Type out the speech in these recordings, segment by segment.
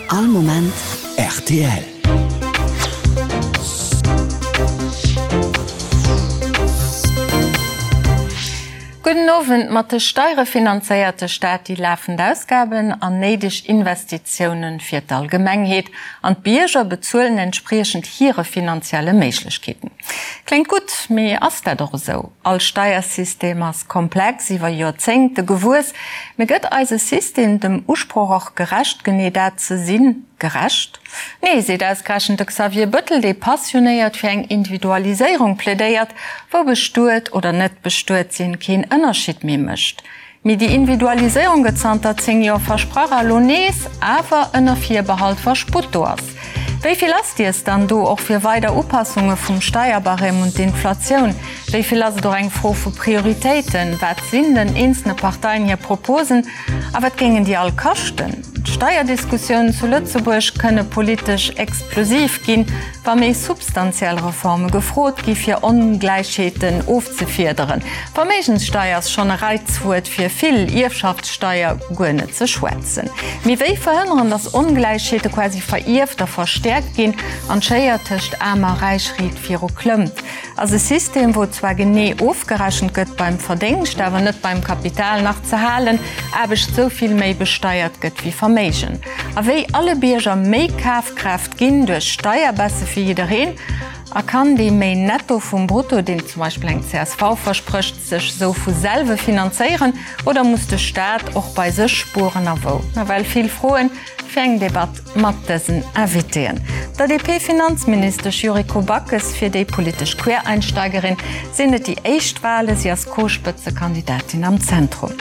All Moment rtl. Gudden Owend. Mat de Steiere finanzéiert de Staat déi lafend Ausgaben an néideg Investitiounen fir d'Allgemengheet, an d'Bierger bezuelen entspriechend hire finanzielle Méiglechkeeten. Kléngt gutt, mee ass dat och esou? All Steiersystem ass komplex, iwwer Joerzéngte gewuess. Mee gëtt eise System dem Usproch och gerecht, genee dat ze sinn, gerecht? Nee, seet ausgerechent de Xavier Bëttel, dee passionéiert fir eng Individualiséierung plädéiert, wou bestuet oder net bestuet sinn keen Ënnerscheed méi mécht. Mee déi Individualiséierung gëtt zanter 10 Joer versprach a lo nees, awer ënner Virbehalt, wa Sputt do ass. Wéi vill ass dies dann do, och fir weider Upassunge vum Steierbarème un d'Inflatioun? Wéi vill ass et och eng Fro vu Prioritéiten? Wat sinn den eenzelne Parteien hir Proposen a wat géingen déi all kaschten? D'Steierdiskussiounen zu Lëtzebuerg kënne politesch explosiv ginn, wa méi substantiell Reforme gefrot gi fir Ongläichheeten ofzefiederen. Verméigenssteier ass schonn e Reizwuert fir vill, Ierfschaftssteier guer net ze schwätzen. Mee wéi verhënneren, datt Ongläichheete quasi verierft a verstäerkt ginn an d'Schéier tëscht Aarm a Räich riit viru klëmmt? Ass e System, wou zwar genee ofgerechent gëtt beim Verdéngscht, awer net beim Kapital, nach ze halen, Aarbecht sou vill méi besteiert gëtt wéi Verméigen? A wéi alle Bierger méi Kafkraaft ginn duerch Steierbaisse fir jiddereen? A kann dee méi Netto vum Brutto, deen zum Beispill eng csv versprécht, sech sou vu selwe finanzéieren oder muss de Staat och bei sech spueren a wou? Nawell vill Froen fir eng Debatt mat dësen Invitéen. Der DP-Finanzministesch Yuriko Backes, fir déi politesch Quereinsteigerin sinn et déi éischt Wale, si ass Co-Spëtzekandidatin am Zentrum.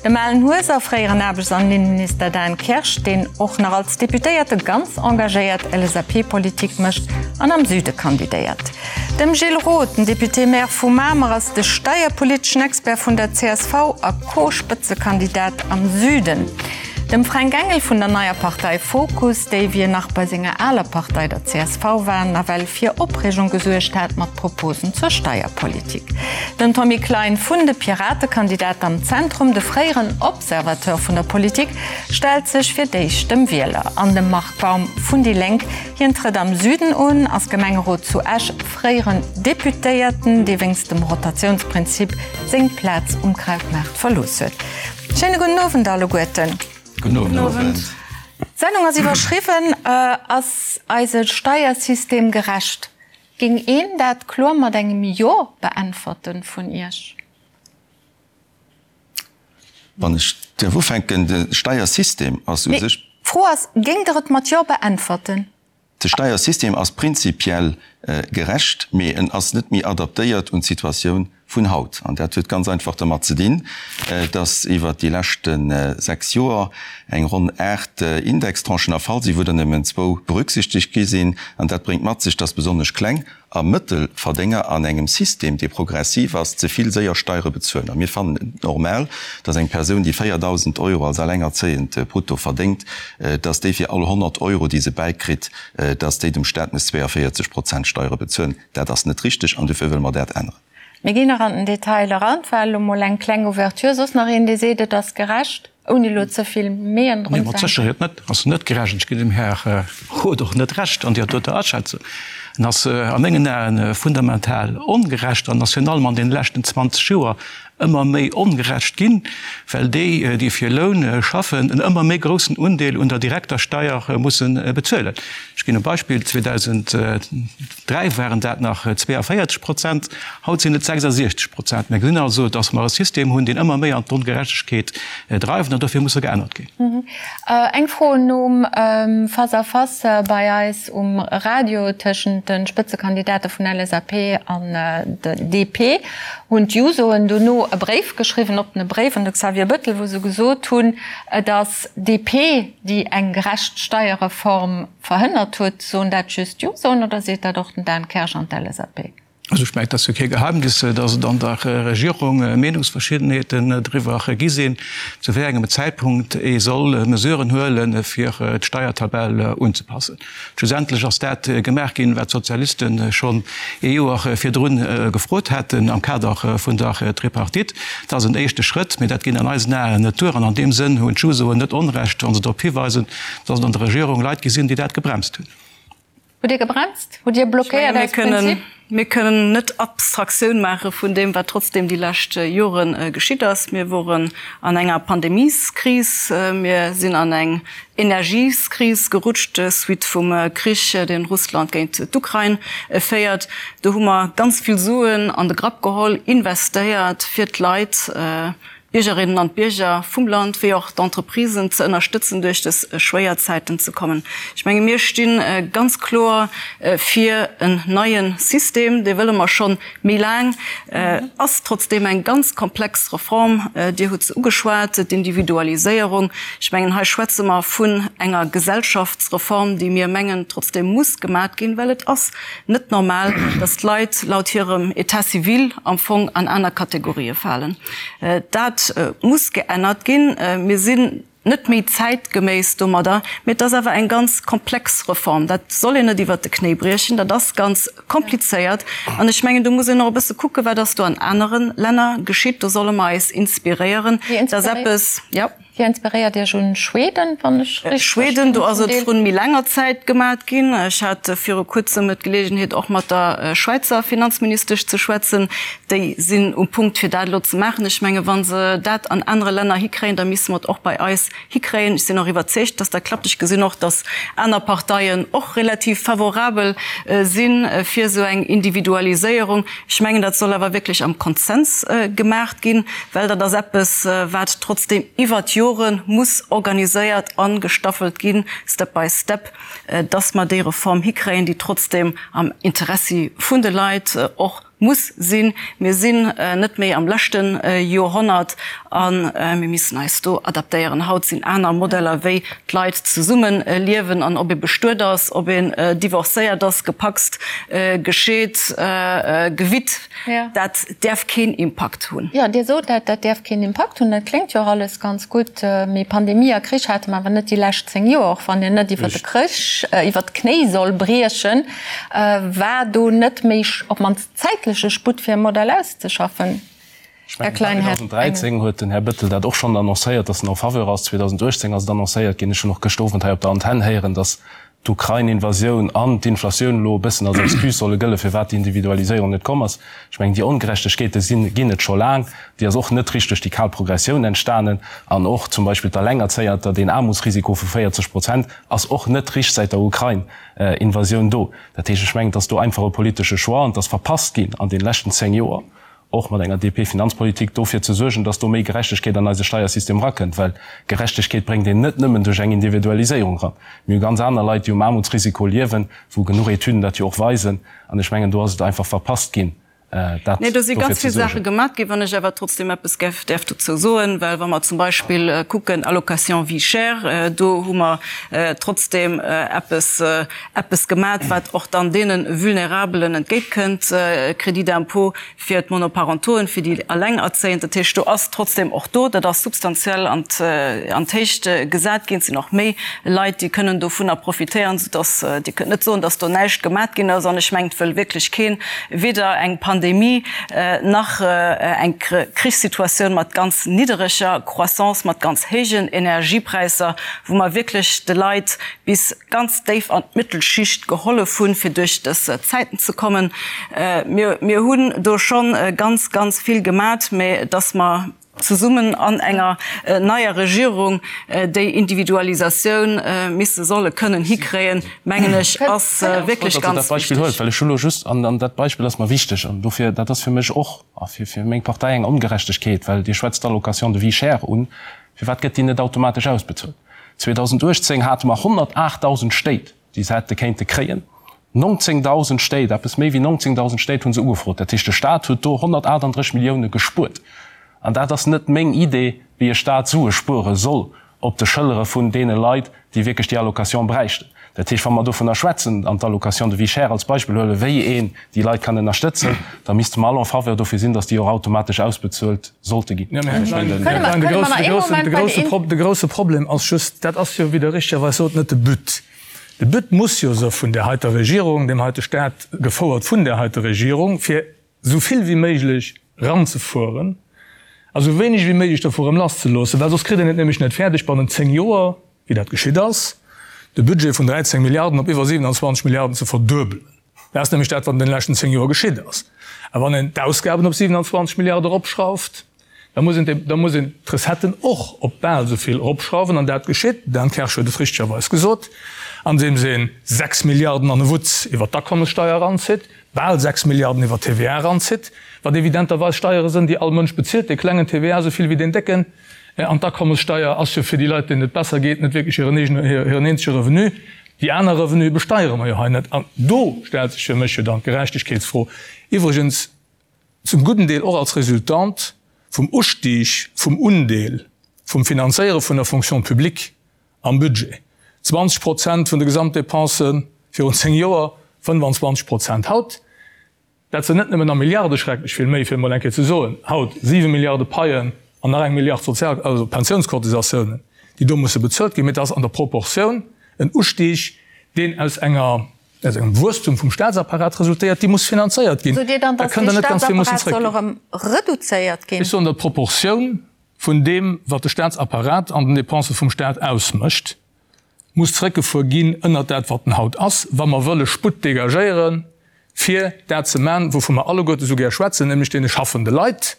Dem Alan Hueser, fréieren Aarbechts an Innenminister Dan Kersch, deen och nach als Deputéierte ganz engagéiert LSAP-Politik mécht an am Süde kandidéiert. Dem Gilles Roth, den Député-Maire vu Mamer, ass de steierpoliteschen Expert vun der csv a Co-Spëtzekandidat am Süden. Dem Fränk Engel vun der neier Partei Fokus, déi wéi en nach bei senger aler Partei, der csv war, nawell fir Opreegung gesuergt hat mat Proposen zur Steierpolitik. Den Tommy Klein vun de Pirate, Kandidat am Zentrum, de fréieren Observateur vun der Politik, stellt sech fir d'éischt dem Wieler. An dem Marc Baum vun déi Lénk, hien trëtt am Süden un, ass Gemengerot zu Esch, fréieren Deputéierten, dee wéinst dem Rotatiounsprinzip seng Plaz um Krautmaart verlooss huet. Schéine gudden Owend alleguerten. Gudden Owend. D'Sendung ass iwwerschriwwen, Ass eise Steiersystem gerecht? Géing een dat kloer mat engem Jo beäntwerten vun Iech? Wann ech däerf ufänken, de Steiersystem ass u sech. D'Fro ass, Géingt Der et mat Jo beäntwerten? De Steiersystem ass prinzipiell gerecht, mee en ass net méi adaptéiert un d'Situatioun vun haut. An dat huet ganz einfach dermat ze dinn, dass iwwert déi leschte 6 Joer eng ronn 8 Indextranchen erfall sinn, wou der nëmmen zwou berücksichtegt gi sinn. An dat bréngt mat sech, dass besonnesch kleng a Mëttelverdénger an engem System, dee progressiv ass, ze vill séier Steiere bezuelen. A mir fannen et normal, dass eng Persoun, déi 4.000 Euro als Allengerzéiend brutto verdéngt, dass déi fir all 100 Euro, déi se bäikritt, dass déi dem Staat muss 42 Prozent Steiere bezuelen. Dat ass net richteg an dofir wëlle mer dat änneren. Mir ginn nach an den Detail eran. Et war elo mol eng kleng Ouverture. Soss nach een, dee seet, et ass gerecht? Ouni elo ze vill Meeën drun ze hänken. Nee, mat Sécherheet net. Ass net gerecht. Ech ginn dem Här Roth och net Recht an där doter Aschätzung. En ass a mengen Aen fundamental ongerecht an ass virun allem an deene leschten 20 Joer ëmmer méi ongerecht ginn, well déi, déi fir Loun schaffen, en ëmmer méi groussen Undeel un der direkter Steier musse bezuelen. Ech ginn e Beispill, 2003 waren dat nach 42 Prozent, haut sinn et 66 Prozent. Mir gesinn also, datt mer e System hunn, deen ëmmer méi an d'Ongerechtegkeet dreift, an dofir muss e geännert ginn. Eng Fro nom Face-à-face bei eis um Radio tëschent de Spëtzekandidate vun LSAP an DP hunn d'Jusoen dono e Bréif geschriwwen, oppene Bréif un de Xavier Bettel, wou se gesot hunn, et ass DP, déi eng gerecht Steierreform verhënnert huet. Soen dat just d'Jusoen oder seet dat och den Dan Kersch an d'LSAP? Also ech mengen, et ass jo kee Geheimnis, datt et an der Regierung Meenungsverschiddenheeten driwwer gi sinn, zu wéi engem Zäitpunkt ee soll Mesuren huelen, fir d'Steiertabell unzepassen. Schlussendlech ass dat gemaach ginn, wat d'Sozialiste schonn ee Joer virdrun gefrot haten am Kader vun der Tripartite. Dat ass en éischte Schrëtt, mee dat geet an eisen Aen net duer. An an deem Sënn hunn d'Jusoen net Onrecht, wa se drop hiweisen, datt et an der Regierung Leit gi sinn, déi dat gebremst hunn. Hutt Dir gebremst? Hutt Dir blockéiert aus Prinzip? Mir kënnen net Abstraktioun maache vun deem, wat trotzdeem déi lescht Jore geschitt ass. Mir woren an enger Pandemieskris, mir sinn an eng Energieskris gerutscht, suite vum Krich, deen Russland géint d'Ukrain féiert. Do hu mer ganz vill Suen an de Grapp geholl, investéiert, fir d'Leit, d'Biergerinnen an d'Bierger vum Land wéi och d'Entreprisen ze ënnerstëtzen, duerch dës schwéier Zäiten ze kommen. Ech menge mir sti ganz kloer fir en neie System, dee wëlle mer scho méi laang, ass trotzdeem eng ganz komplex Reform. Dir hutt se ugeschwat, d'Individualiséierung. Ech mengen hei schwätze mer vun enger Gesellschaftsreform, déi mir mengen trotzdeem muss gemat ginn, well et ass net normal, dass d'Leit laut hirem État civil am Fong an aner Kategorië falen. Dat muss geännert ginn. Mir sinn net méi zäitgeméiss domadder, mee et ass awer eng ganz komplex Reform. Dat soll een net iwwert de Knéi briechen. Dat ass ganz komplizéiert. An ech mengen, do muss een och e bësse kucken, wat ass do an anere Länner geschitt. Do solle mer eis inspiréieren. Dat ass eppes, jo. Dir inspiréiert Iech un Schweden, wann ech richteg verstinn? Schweden, do ass et vrun méi laanger Zäit gemat ginn. Ech hat viru kuerzem d'Geleegenheet och mat der Schwäizer Finanzministesch ze schwätzen. Déi sinn um Punkt fir dat elo ze maachen. Ech menge wa se dat an anere Länner hikréien, da misste mer et och bei eis hikréien. Ech sinn och iwwerzeegt, datt dat klappt. Ech gesinn och, datt aner Parteien och relativ favorabel si fir esou eng Individualiséierung. Ech mengen, dat soll awer wierklech am Konsens gemaacht ginn, well dat ass eppes, wat trotzdeem iwwert d'Jore muss organiséiert a gestaffelt ginn, step by step, dass mer déi Reform hikréien, déi trotzdeem am Interessi vun de Leit och muss sinn. Mir sinn net méi am leschte Joerhonnert a mir missen eis do adaptéieren. Haut sinn aner Modeller, wéi d'Leit zesumme liewen an ob ee bestuet ass, ob een divorcéiert ass, gepacst, gescheet, gewitt, dat däerf keen Impakt hunn. Jo, Dir sot dat, dat däerf keen Impakt hunn. Dat kléngt jo och alles ganz gutt. Mee Pandemie a Krich hate mer awer net déi lescht 10 Joer. Och wann een net iwwer de Krich, iwwer d'Knéi soll briechen, war do net méi op d'mannst zäitleche Sputt fir e Modell auszeschaffen? Ech mengen, 2013 huet den Här Bettel dat och schonn annoncéiert, dass en en faveur ass. 2018 ass et annoncéiert ginn. Ech hunn och gëscht Owend hei op der Antenn héieren, dass d'Ukrain-Invasioun an d'Inflatioun elo e bëssen als Excuse solle gëllen, firwat déi Individualiséierung net komm ass. Ech mengen, déi Ongerechtegkeete sinn, ginn et scho laang. Déi ass och net richteg duerch déi kal Progressioun entstanen. An och zum Beispill d'Alengerzéierter, deen Aarmutsrisiko vu 40 Prozent ass och net richt säit der Ukrain-Invasioun do. Dat heescht, ech mengen, et ass do einfach e politesche Choix an et ass verpasst ginn an deene leschten 10 Joer, och mat enger DP-Finanzpolitik, dofir ze suergen, dass do méi Gerechtegkeet an eise Steiersystem erakënnt, well Gerechtegkeet bréngt een net nëmmen duerch eng Individualiséierung eran. Mir hu ganz aner Leit, déi um Aarmutsrisiko liewen, wou genuch Etüden dat jo och weisen. An ech mengen, do ass et einfach verpasst ginn, dat Nee, do si dofir ganz ze vill Saache suergen. gemaat ginn. Wann ech awer trotzdem eppes gäff däerf dozou soen, well wa mer zum Beispill kucken, Allocation vie chère, do hu mer trotzdem eppes, eppes gemat, wat och dann deene Vulnerabelen entgéintkënnt, Crédit d'impôt fir d'Monoparentoen, fir déi Allengerzéiend. Dat heescht, do ass trotzdem och do, dat ass substantiell an d'Héicht gesat ginn. Et sinn och méi Leit, déi kënnen dovunner profitéieren, soudass Dir kënnt net soen, dass do näischt gemat ginn ass. An ech mengen, et wëll wierklech keen, weder eng Pandemie nach eng Krichssituatioun mat ganz niddereger Croissance, mat ganz héijen Energiepräisser, wou mer wierklech de Leit bis ganz déif an d'Mëttelschicht gehollef hunn, fir duerch dës Zäiten ze kommen. Mir, mir hunn do scho ganz, ganz vill gemat, mä dass mer zesummen an enger neier Regierung déi Individualisatioun misse solle kënnen hikréien, mengen ech, ass wierklech ganz wichteg. Well ech hu lo just, an dat Beispill ass mer wichteg, an dofir, dat ass fir mech och a fir meng Partei eng Ongerechtegkeet, well Dir schwätzt d'Allocation de vie chère un, firwat gëtt déi net automatesch ausbezuelt? 2018 hate mer 108.000 Stéit, déi se hätte kéinte kréien. 19.000 Stéit, eppes méi wéi 19.000 Stéit hu se ugefrot. Dat heescht, de Stat huet do 138 Millioune gespuert. An dat ass net meng Idee, wéi e Stat Sue spuere soll op de Schëllere vun deene Leit, déi wierklech déi Allocation bräichten. Dat heescht, wa mer dovunner schwätzen an d'Allocation de vie chère als Beispill huelen, wéi een déi Leit kann ënnerstëtzen, da misste mer all en faveur dofir sinn, datt déi och automatesch ausbezuelt sollte ginn. De grousse Problem ass just, dat ass jo, wéi Der richtegerweis sot, net de But. De But muss jo se vun där heiter Regierung, deem heite Staat, gefouert vun där heiter Regierung, fir esou vill wéi méiglech eranzefueren a sou wéineg wéi méiglech dovu erëm lasszeloossen, well soss kritt een et nämlech net fäerdeg bannent 10 Joer, wéi dat geschitt ass, de Budget vun 13 Milliarden op iwwer 27 Milliarden ze verduebelen. Dat ass nämlech dat, wat an deene leschten 10 Joer geschitt ass. A wann een d'Ausgaben op 27 Milliarde eropschrauft, da muss een, da muss een d'Recetten och op bal esou vill eropschrauwen. An dat geschitt, Dan Kersch huet et richtegerweis gesot, andeems ee 6 Milliarden an e Wutz iwwert d'Akommessteuer eranzitt, bal 6 Milliarden iwwert d'TVA eranzitt, wat evidenterweis Steiere sënn, déi all Mënsch bezilt, dee klengen TVA esou vill wéi deen décken. An d'Akommessteuer ass jo fir déi Leit, deenen et besser geet, net wierklech hiren eegene, hiren eenzege Revenu. Déi aner Revenue besteiere mer jo hei net. An do stellt sech fir mech jo dann d'Gerechtegkeetsfro, iwwregens zum gudden Deel och als Resultant vum Ustieg vum Undeel vum Finanzéiere vun der Fonction publique am Budget, 20 Prozent vun de Gesamtdépensen virun 10 Joer, 25 Prozent haut. Dat sinn net nëmmen a Milliarde schrecklech vill méi, fir emol eng Kéier ze soen, haut 7 Milliarde Paien an nach eng Milliard Sozial-, also Pensiounscotisatiounen, déi do musse bezuelt ginn, mee et ass an der Proportioun en Ustieg, deen aus enger, aus engem Wuesstum vum Staatsapparat resultéiert, déi muss finanzéiert ginn. Sot Dir dann, Da datt kënnt dee Der net ganz vill mussen Staatsapparat soll zréckginn. erëm reduzéiert ginn? Ech soen, datt d'Proportioun vun deem, wat de Staatsapparat an den Dépensë vum Staat ausmécht, muss zréckgefuer ginn ënnert dat, wat en haut ass, wa mer wëlle Sputt dégagéieren, fir dat ze man, wouvu mer alleguerte sou gär schwätzen, nämlech deene schaffende Leit,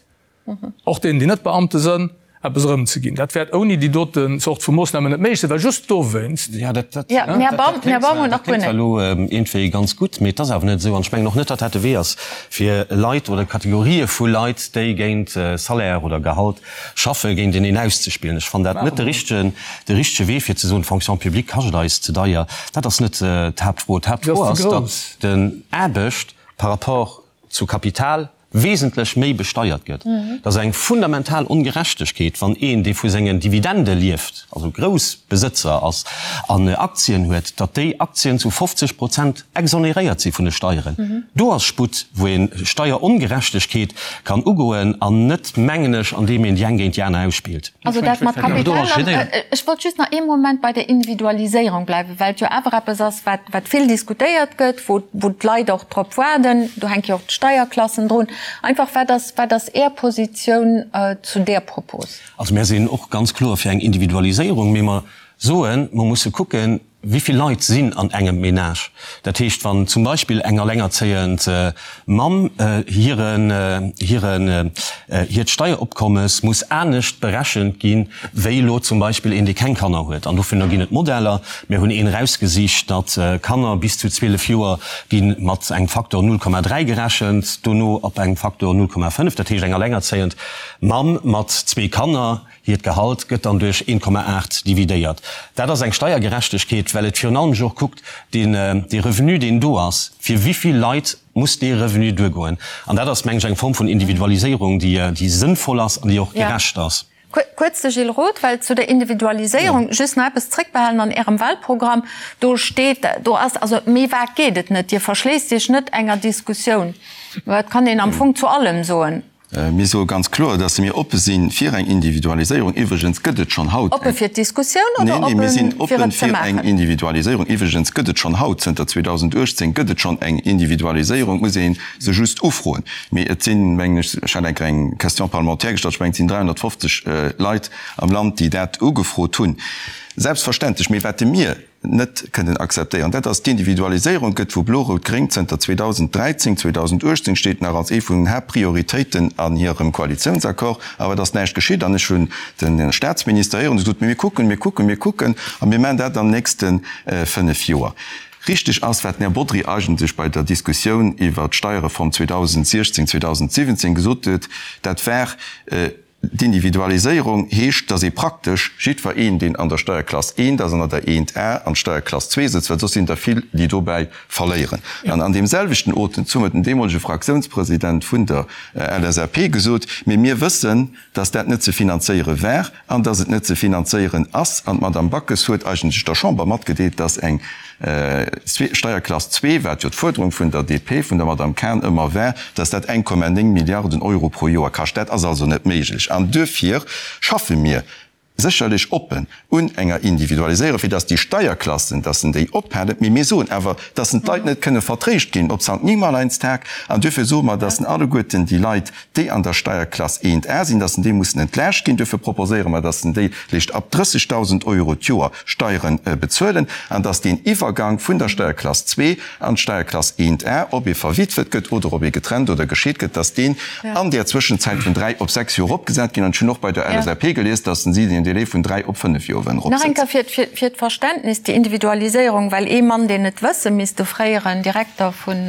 och deenen, déi net Beamte sënn, eppes erëmzeginn. Dat wäert ouni déi doten Zort vu Moossnamen net méiglech sinn, well just dowéinst. Jo, dat kléngt zwar elo iergendwéi ganz gutt, mee et ass awer net esou. An ech mengen och net, datt dat de Wee ass, fir Leit oder Kategorië vu Leit, déi géint Salaire oder Gehalt Schaffe géinteneen auszespillen. Ech fannen dat net de richtegen, de richtege Wee fir ze soen, d'Fonction publique kascht eis ze deier. Dat ass net d'Haaptfro. D'Haaptfro ass, datt den Aarbecht par rapport zu Kapital wesentlech méi besteiert gëtt. Dat ass eng fundamental Ongerechtegkeet, wann een, dee vu sengen Dividende lieft, also Groussbesëtzer ass an Aktien huet, datt déi Aktien zu 50 Prozent exonéréiert si vun de Steieren. Do ass Sputt, wou ee Steierongerechtegkeet kann ugoen an net, mengen ech, andeem een déi eng géint déi aner ausspillt. Also dat mat Kapital, an ech wollt just nach ee Moment bei der Individualiséierung bleiwen, well et jo awer eppes ass, wat, wat vill diskutéiert gëtt, wou, wou d'Leit och drop waarden. Do hänke jo och d'Steierklassen drun. Einfach, wat ass, wat ass Är Positioun zu där Propos? Also mär sinn och ganz kloer fir eng Individualiséierung, mee mer soen, mer musse kucken, Wéi vill Leit sinn an engem Menage? Dat heescht, wann zum Beispill eng allengerzéiend Mamm hiren, hiren, hiert Steieropkommes muss anescht berechent gi wéi elo zum Beispill een, dee keng Kanner huet. An dofir ginn et Modeller. Mir hunn een erausgesicht, datt Kanner bis zu 12 Joer gi mat engem Faktor 0,3 gerechent, dono op engem Faktor 0,5. Dat heescht, eng allengerzéiend Mamm mat zwee Kanner, Hiert Gehalt gëtt dann duerch 1,8 dividéiert. Dat ass eng Steiergerechtegkeet, well et virun allem jo och kuckt, deen, dee Revenu, deen do ass, fir wéi vill Leit muss dee Revenu duergoen. An dat ass, meng ech, eng Form vun Individualiséierung, déi, déi sënnvoll ass an déi och gerecht ass. Kuerz de Gilles Roth, well zu der Individualiséierung just nach eppes zréckbehalen an Ärem Wahlprogramm, do steet, do ass, also méi vag geet et net, Dir verschléisst Iech net enger Diskussioun. Dat kann een am Fong zu allem soen. Mir soe ganz kloer, dass mir oppe si fir eng Individualiséierung. Iwwregens gëtt et schonn haut eng. Oppe fir d'Diskussioun oder oppe fir et ze maachen? Neen, mir sinn oppe fir eng Individualiséierung. Iwwregens gëtt et schonn haut, zënter 2018 gëtt et schonn eng Individualiséierung. Et muss ee se just ufroen. Mee et sinn, mengen ech, ech hat eng Kéier eng Question parlementaire gestallt, ech mengen, et sinn 350 Leit am Land, déi dat ugefrot hunn. Selbstverständlech. Mee wat mir net kënnen akzeptéieren, dat ass d'Individualiséierung gëtt vu Blo-Rout-Gréng zënter 2013, 2018 steet nach als ee vun den Haaptprioritéiten an hirem Koalitiounsaccord, awer et ass näischt geschitt. An ech hunn de Statsminister héieren, dee sot, Mir kucken, mir kucken, mir kucken a mir maachen dat an den nächste fënnf Joer. Richtig ass, wat den Här Bodry eigentlech bei der Diskussioun iwwert d'Steierreform 2016, 2017 gesot huet, dat war, D'Individualiséierung heescht, dass ee praktesch jiddwer een, deen an der Steierklass eent ass an an der eent A an d'Steierklass zwee sëtzt, well soss sinn der vill, déi dobäi verléieren. An an deem selwechten Otemzuch huet den deemolege Fraktiounspresident vun der LSAP gesot, Mee mir wëssen, dass dat net ze finanzéiere war an dass et net ze finanzéieren ass. An d'Madame Backes huet eigentlech der Chamber matgedeelt, dass eng. Steierklass zwee, wat jo d'Fuerderung vun der DP, vun der Madame Cahen ëmmer war, dass dat 1,9 Milliarden Euro pro Joer kascht. Dat ass also net méiglech an duerfir schaffe mir sécherlech oppen un enger Individualiséierung, fir dass déi Steierklassen, dass en déi ophalen. Mee mir soen awer, dass en d'Leit net kënne vertréischt ginn op Sankt Nimmerleinstag an duerfir soe mer, dass en alleguerten déi Leit, déi an der Steierklass 1a sinn, dass en déi mussen entlaascht ginn. Duerfir proposéiere mer, dass en déi léischt ab 30.000 Euro d'Joer Steiere bezuelen an dass deen Iwwergang vun der Steierklass 2 an d'Steierklass 1a, ob ee verwitwet gëtt oder ob ee getrennt oder gescheet gëtt, dass deen an där Zwëschenzäit vun 3 op 6 Joer eropgesat ginn. An ech hunn och bei der LSAP gelies, dass si den Délai vun 3 op 5 Joer wëllen Nach eng eropsetzen. Kéier fir d'Verständnis, déi Individualiséierung, well ee Mann, deen et wësse misst, de fréieren Direkter vun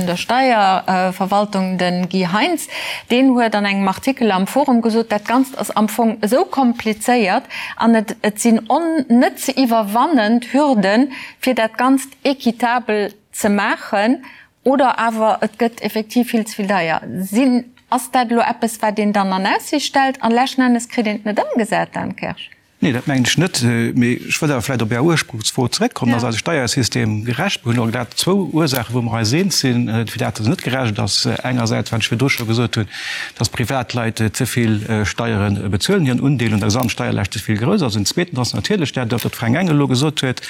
der Steierverwaltung, de Guy Heintz, deen huet an engem Artikel am Forum gesot, dat Ganzt ass am Fong esou komplizéiert an et sinn net ze iwwerwannend Hürden, fir dat Ganzt équitabel ze maachen, oder awer et gëtt effektiv vill ze vill deier. Sinn, ass dat elo eppes, wat een dann an Aussiicht stellt an leschten Ennes kritt een et net ëmgesat, Dan Kersch? Nee, dat mengen ech net. Mee ech wëll awer vläicht op Är Ursprungsfro zeréckkommen. Ass eise Steiersystem gerecht? Mir hunn elo grad zwou Ursaachen, wou mer eis eens sinn, firwat en net gerecht ass. Engersäits, wat ech virdru scho gesot hunn, dass Privatleit ze vill Steiere bezuelen, hiren Undeel un der Gesamtsteierlaascht ze vill grouss ass. An zweetens ass natierlech dat, wat de Fränk Engel elo gesot huet,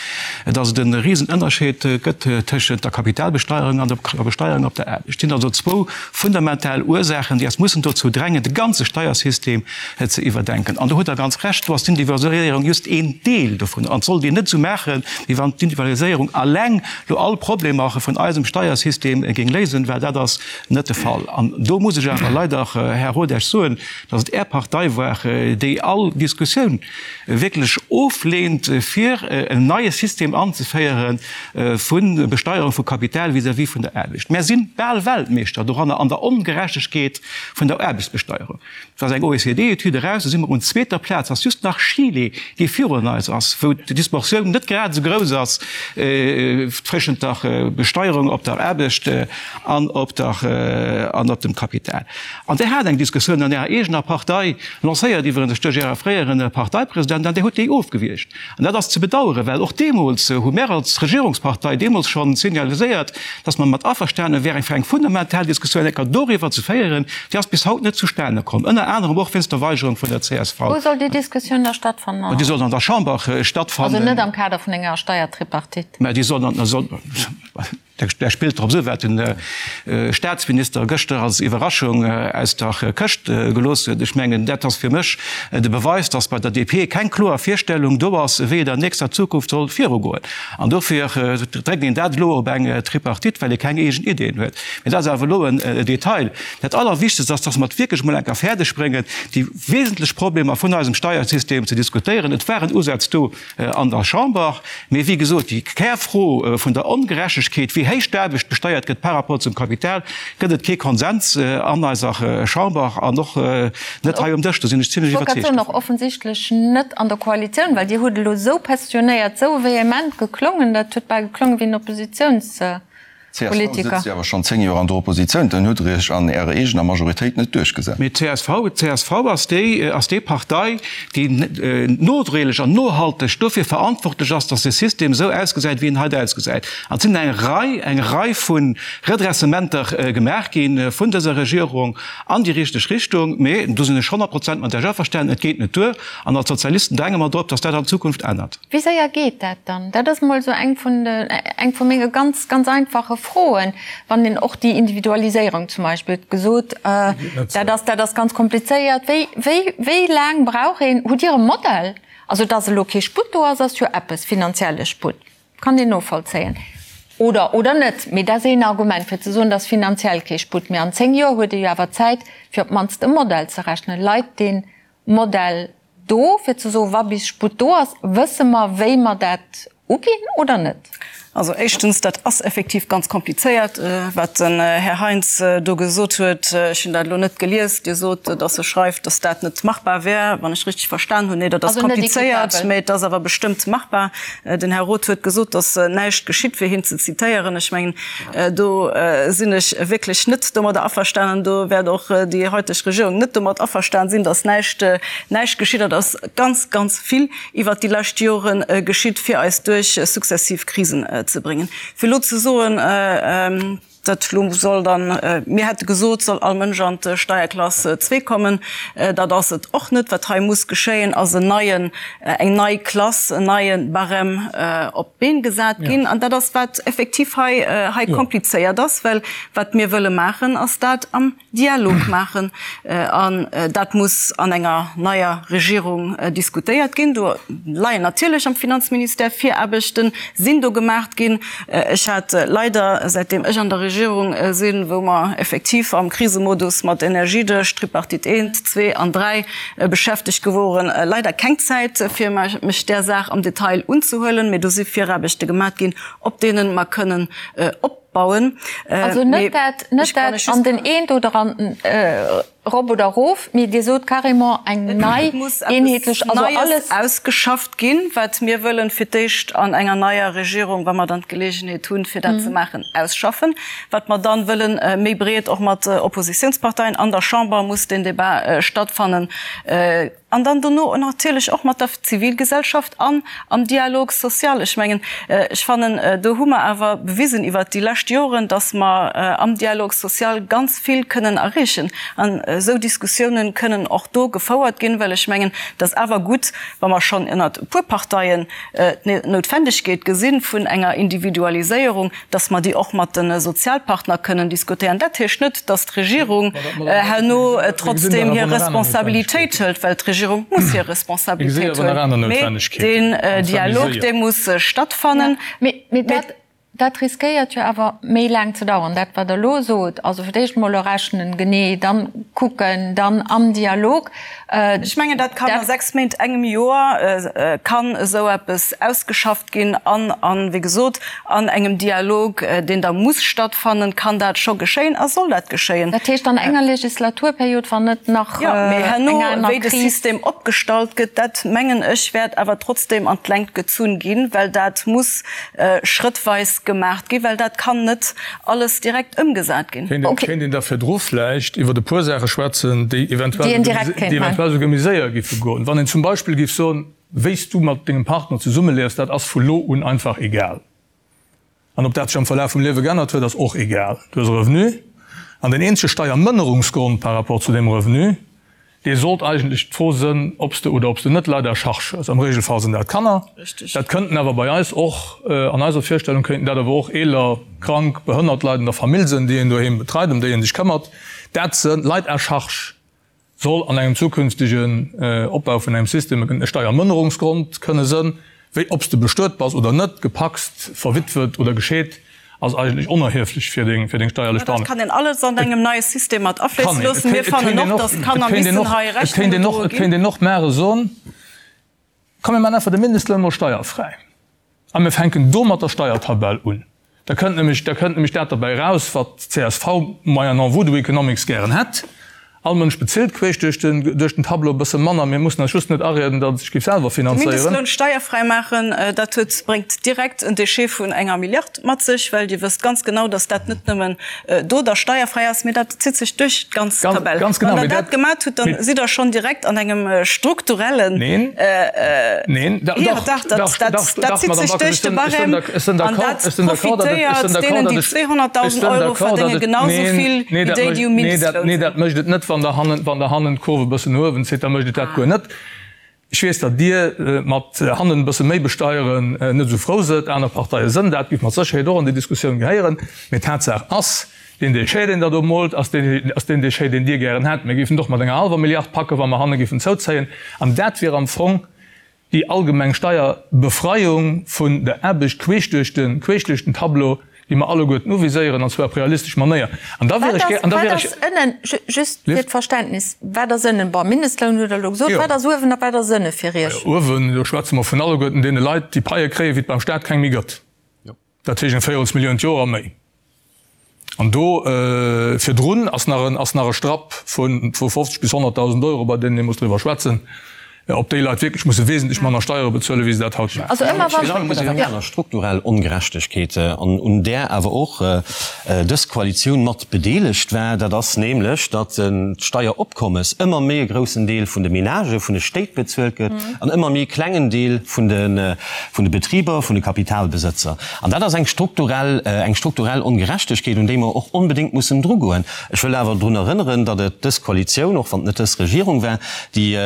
dass et e Risenënnerscheed gëtt tëschent der Kapitalbesteierung an der Besteierung op der Aarbecht. Et sinn also zwou fundamental Ursaachen, déi eis mussen dozou drängen, de ganze Steiersystem ze iwwerdenken. An do hutt Der ganz Recht, do ass d'Individualiséierung just een Deel dovun. An et sollt een net esou maachen, wéi wann d'Individualiséierung alleng elo all Problemer vun eisem Steiersystem géing léisen, well dat ass net de Fall. An do muss ech awer leider, Här Rodesch, soen, dass et Är Partei war, déi all Diskussioun wierklech ofleent, fir en neie System anzeféiere vu Besteierung vu Kapital vis-à-vis vun der Aarbecht. Mär si bal Weltmeeschter doranner an der Ongerechtegkeet vun der Aarbechtsbesteierung. Et ass eng OECD-Etüd eraus, do si mer un zweeter Plaz, ass just nach Chile, dee virun eis ass, wou d'Disproportioun net grad esou grouss ass tëschent der Besteierung op der Aarbecht an op der an op dem Kapital. An Dir hat eng Diskussioun an Ärer eegener Partei, lancéiert iwwerens duerch Äre fréiere Parteipresident, an Dir hutt déi ofgewiergt. An dat ass ze bedauern, well och deemools hu mär als Regierungspartei deemools schonn signaliséiert, dass mer mat averstane wären, fir eng fundamental Diskussioun enker doriwwer ze féieren. Déi ass bis haut net zustane komm, ënner anerem och wéinst der Weigerung vun der csv. Wou soll déi Diskussioun da stattfannen? Déi soll an der Chamber stattfannen. Also net am Kader vun enger Steiertripartite? Mä déi soll an, soll. Där spillt drop esou, wat de Statsminister gëschter als Iwwerraschung aus der Këscht gelooss huet. Ech mengen, dat ass fir mech de Beweis, dass bei der DP keng kloer Virstellung do ass, wéi et an nächster Zukunft soll virugoen. An dofir dréckt een dat elo op eng Tripartite, well ee keng eegen Ideeën huet. Mee dat ass awer elo en Detail. Dat Allerwichtegst ass, dass mer et wierklech emol eng Kéier fäerdegbréngen, déi wesentlech Problemer vun eisem Steiersystem ze diskutéieren. Et waren Usätz do, an der Chamber. Mee wéi gesot, déi Kärfro vun der Ongerechtegkeet, wéi héich d'Aarbecht besteiert gëtt par rapport zum Kapital, gëtt et kee Konsens an eiser Chamber an och net hei um Dësch. Do sinn ech zimlech iwwerzeegt dovun. Och offensichtlech net an der Koalitioun, well Dir hutt elo esou passionéiert, esou vehement geklongen, dat huet bal geklongen wéi en Oppositiouns. Csv sëtzt jo awer schonn 10 Joer an der Oppositioun, dann hutt Der Iech an Ärer eegener Majoritéit net duerchgesat. Mee csv, csv ass déi, ass déi Partei, déi nodréiglech an nohalteg dofir verantwortlech ass, datt de System esou ausgesäit, wéi en haut ausgesäit. An et sinn eng Rei, eng Rei vu Redressementer gemaach gi vun dëser Regierung an déi richteg Richtung. Mee, do sinn ech 100 Prozent mat Iech averstanen, et geet net duer. An als Sozialisten dränge mer drop, datt dat an Zukunft ännert. Wéi séier geet dat dann? Dat ass emol esou eng vun de, eng vu menge ganz, ganz einfache Froen, wann een och déi Individualiséierung zum Beispill huet gesot, dat ass, dat ass ganz komplizéiert. Wéi, wéi, wéi laang brauch een? Hutt Dir e Modell? Also, dass elo kee Sputt do ass, ass jo eppes, finanzielle Sputt, kann een novollzéien oder, oder net. Mee dat ass een Argument, fir ze soen, dass finanziell kee Sputt. Mee an 10 Joer huet ee jo awer Zäit, fir op d'mannst e Modell ze rechnen. Leit dee Modell do, fir ze soen, wa bis Sputt do ass, wësse mer, wéi mer dat uginn oder net? Also éischtens, dat ass effektiv ganz komplizéiert, wat den Här Heintz do gesot huet. Ech hunn dat elo net gelies. Dir sot, datt e schreift, datt dat net machbar wär, wann ech richteg verstan hunn. Nee, dat ass komplizéiert, mä et ass awer bestëmmt machbar. Den Här Roth huet gesot, datt näischt geschitt, fir hien ze zitéieren. Ech mengen, Do sinn ech wierklech net domadder averstanen. Do wäert och déi heuteg Regierung net domat averstan sinn, datt näischt, näischt geschitt. Et ass ganz, ganz vill iwwert déi lescht Jore geschitt, fir eis duerch successiv Krisen ze bréngen. Fir elo ze soen, dat elo soll dann, mir hätte gesot, soll all Mënsch an d'Steierklass zwee kommen, dat ass et och net. Wat hei muss geschéien, ass en neien, eng nei Klass, en neie Barème op d'Been gesat ginn. An dat ass, wat effektiv hei, hei komplizéiert ass, well wat mir wëlle maachen, ass dat am Dialog maachen. An dat muss an enger neier Regierung diskutéiert ginn. Do leien natierlech am Finanzministère Viraarbechten, sinn do gemaacht ginn. Ech hat leider, säitdeem ech an der Regierung sinn, wou mer effektiv am Krisemodus mat Energiedësch, Tripartite eent, zwee an dräi beschäftegt geworen, leider keng Zäit, fir mech där Saach am Detail unzehuelen. Mee do si Viraarbechte gemaacht ginn, op deene mer kënnen op. Bauen. Also net dat, net dat an den eent oder an den erop oder erof, mee Dir sot carrément eng nei eenheetlech, also alles. Ausgeschafft ginn, wat mir wëllen fir d'éischt an enger neier Regierung, wa mer dann d'Geleegenheet hunn, fir dat ze maachen, ausschaffen. Wat mer dann wëllen méi breet och mat Oppositionsparteien an der Chamber muss deen Débat stattfannen. An dann dono natierlech och mat der Zivilgesellschaft an am Dialogue social. Ech mengen, ech fannen, do hu mer awer bewisen iwwert déi lescht Joren, dass mer am Dialogue social ganz vill kënnen erreechen. An esou Diskussiounen kënnen och do gefouert ginn, well ech mengen, et ass awer gutt, wa mer schonn ënnert e puer Parteien d'Noutwendegkeet gesi vun enger Individualiséierung, dass mer déi och mat de Sozialpartner kënnen diskutéieren. Dat heescht net, dass d'Regierung herno trotzdem hir Responsabilitéit hëlt, well d'Regierung muss hir Responsabilitéit huelen. Mee deen Dialog, dee muss stattfannen. Mee dat riskéiert jo awer méi laang ze dauern, dat wat Der elo sot. Also fir d'éischt emol errechnen, genee, dann kucken, dann am Dialog. Ech mengen, dat kann a 6 Méint, engem Joer kann esou eppes ausgeschafft ginn an, an, wéi gesot, an engem Dialog, deen da muss stattfannen, kann dat scho geschéien a soll dat geschéien. Dat heescht an enger Legislaturperiod, wann net nach eng aner Kris. Jo, mee herno, wéi de System opgestallt gëtt, dat, mengen ech, wäert awer trotzdem an d'Längt gezunn ginn, well dat muss schrëttweis gemaacht ginn, well dat kann net alles direkt ëmgesat ginn. Kéint een da virdru vläicht iwwer e puer Saache schwätzen, déi eventuell souguer méi séier géife goen? Wann een zum Beispill géif soen, Wéi s du mat dengem Partner zesummeliefs, dat ass vu lo un einfach egal. An ob dat sech am Verlaf vum Liewe geännert huet, ass och egal. Du hues e Revenu an den eenzege Steiermënnerungsgrond par rapport zu deem Revenu, Dee sollt eigentlech d'Fro sënn, ob s de oder ob s de net Leit à charge hues. Am Regelfall sinn dat Kanner. Dat kënnten awer bei eis och, an eiser Virstellung kéinten dat awer och eeler, krank, behënnert Leit an der Famill sënn, déi een doheem betreit, ëm déi ee sech këmmert. Dat sënn Leit à charge soll an engem zukünftegen Opbau vun engem System e Steiermënnerungsgrond kënne sënn. Wéi ob s de bestuet bass oder net, gepacst, verwitwet oder gescheet, ass eigentlech onerhieflech fir deng fir deng steierlech Behandlung. Dat kann een alles an engem neie System mat afléisse loossen. Mir fannen och, datt d'Kanner missen hei Rechnung gedroe ginn. Et kéint een och maache soen, komm mir maachen einfach de Mindestloun mol steierfräi a mir fänken do mat der Steiertabell un. Da kënnt nämlech, da kënnt nämlech dat derbäi eraus, wat d'CSV moyennant Voodoo Economics gären hätt, All Mënsch bezilt queesch duerch den, duerch den Tableau e bësse manner. Mir mussen eis just net arieden, datt et sech géif selwer De finanzéieren. Mindestloun steierfräi maachen, dat huet, bréngt direkt en Déchet vun enger Milliard mat sech, well Dir wësst ganz genau, datt dat net nëmmen do da steierfräi ass, mee dat zitt sech duerch d'ganz Ganz, Tabell. ganz genau, Wann Der mee dat dat, gemat hutt, dann sidd Der schonn direkt an engem strukturellen, Neen, neen, da, Jo, dach, dach, dat, dach, dat, dach, dat dach, zitt Madame sech Backes, duerch ech de sinn, ech sinn Barème ech sinn an d'accord, dat ech sinn d'accord, datt et, ech profitéiert sinn d'accord, deenen, datt déi ech, ech 200.000 sinn Euro d'accord, datt verdéngen, et, genau sou neen, vill nee, wéi dat déi, déi um mécht, nee, dat, Mindestloun nee, sinn. dat mécht et net, wann Der hannen, wann Der hannen d'Kurv e bëssen no uewen zitt, da mécht et dat guer net. Ech weess, datt Dir mat hannen e bësse méi besteieren net esou frou sëtt, aner Parteie sënn dat, géif mat Sécherheet och an déi Diskussioun gehéieren. Mee Tatsaach ass, deen Déchet, deen Der do moolt, ass deen, ass deen Déchet, deen Dir gären hätt. Mir géifen et och mat enger hallwer Milliard packen, wa mer hanne géifen zouzéien. An dat wier am Fong déi allgemeng Steierbefreiung vun der Aarbecht queesch duerch de, queesch duerch den Tableau, déi mer alleguerten uviséieren, an zwar op realistesch Manéier. An da wier ech gär, an da wier ech. Wat ass ënnen, just fir d'Verständnis, wat ass ënnen? Bon, Mindestloun hutt Der elo gesot. Wat ass uewen a wat ass ënne fir Iech? Uewen, do schwätze mer vun alleguerten deene Leit, déi Paie kréien, wéi et beim Staat keng méi gëtt. Dat heescht eng Véierelsmillioun d'Joer a méi. An do virdrun ass nach en, ass nach e Strapp vu, vu 50 bis 100.000 Euro, bei deenen ee muss driwwer schwätzen. Ob déi Leit wierklech musse wesentlech manner Steiere bezuelen, wéi se dat haut maachen. Also ëmmer wann. Virun allem muss eng aner strukturell Ongerechtegkeet, an un där awer och dës Koalitioun mat bedeelegt war, dat ass nämlech, datt d'Steieropkommes ëmmer méi e groussen Deel vun de Menagë, vun de Stéit bezuelt gëtt an ëmmer méi e klengen Deel vun de Betriber, vun de Kapitalbesëtzer. An dat ass eng strukturell, eng strukturell Ongerechtegkeet, un déi mer och onbedéngt mussen drugoen. Ech wëll awer drun erënneren, datt et dës Koalitioun, och wann et net dës Regierung war, déi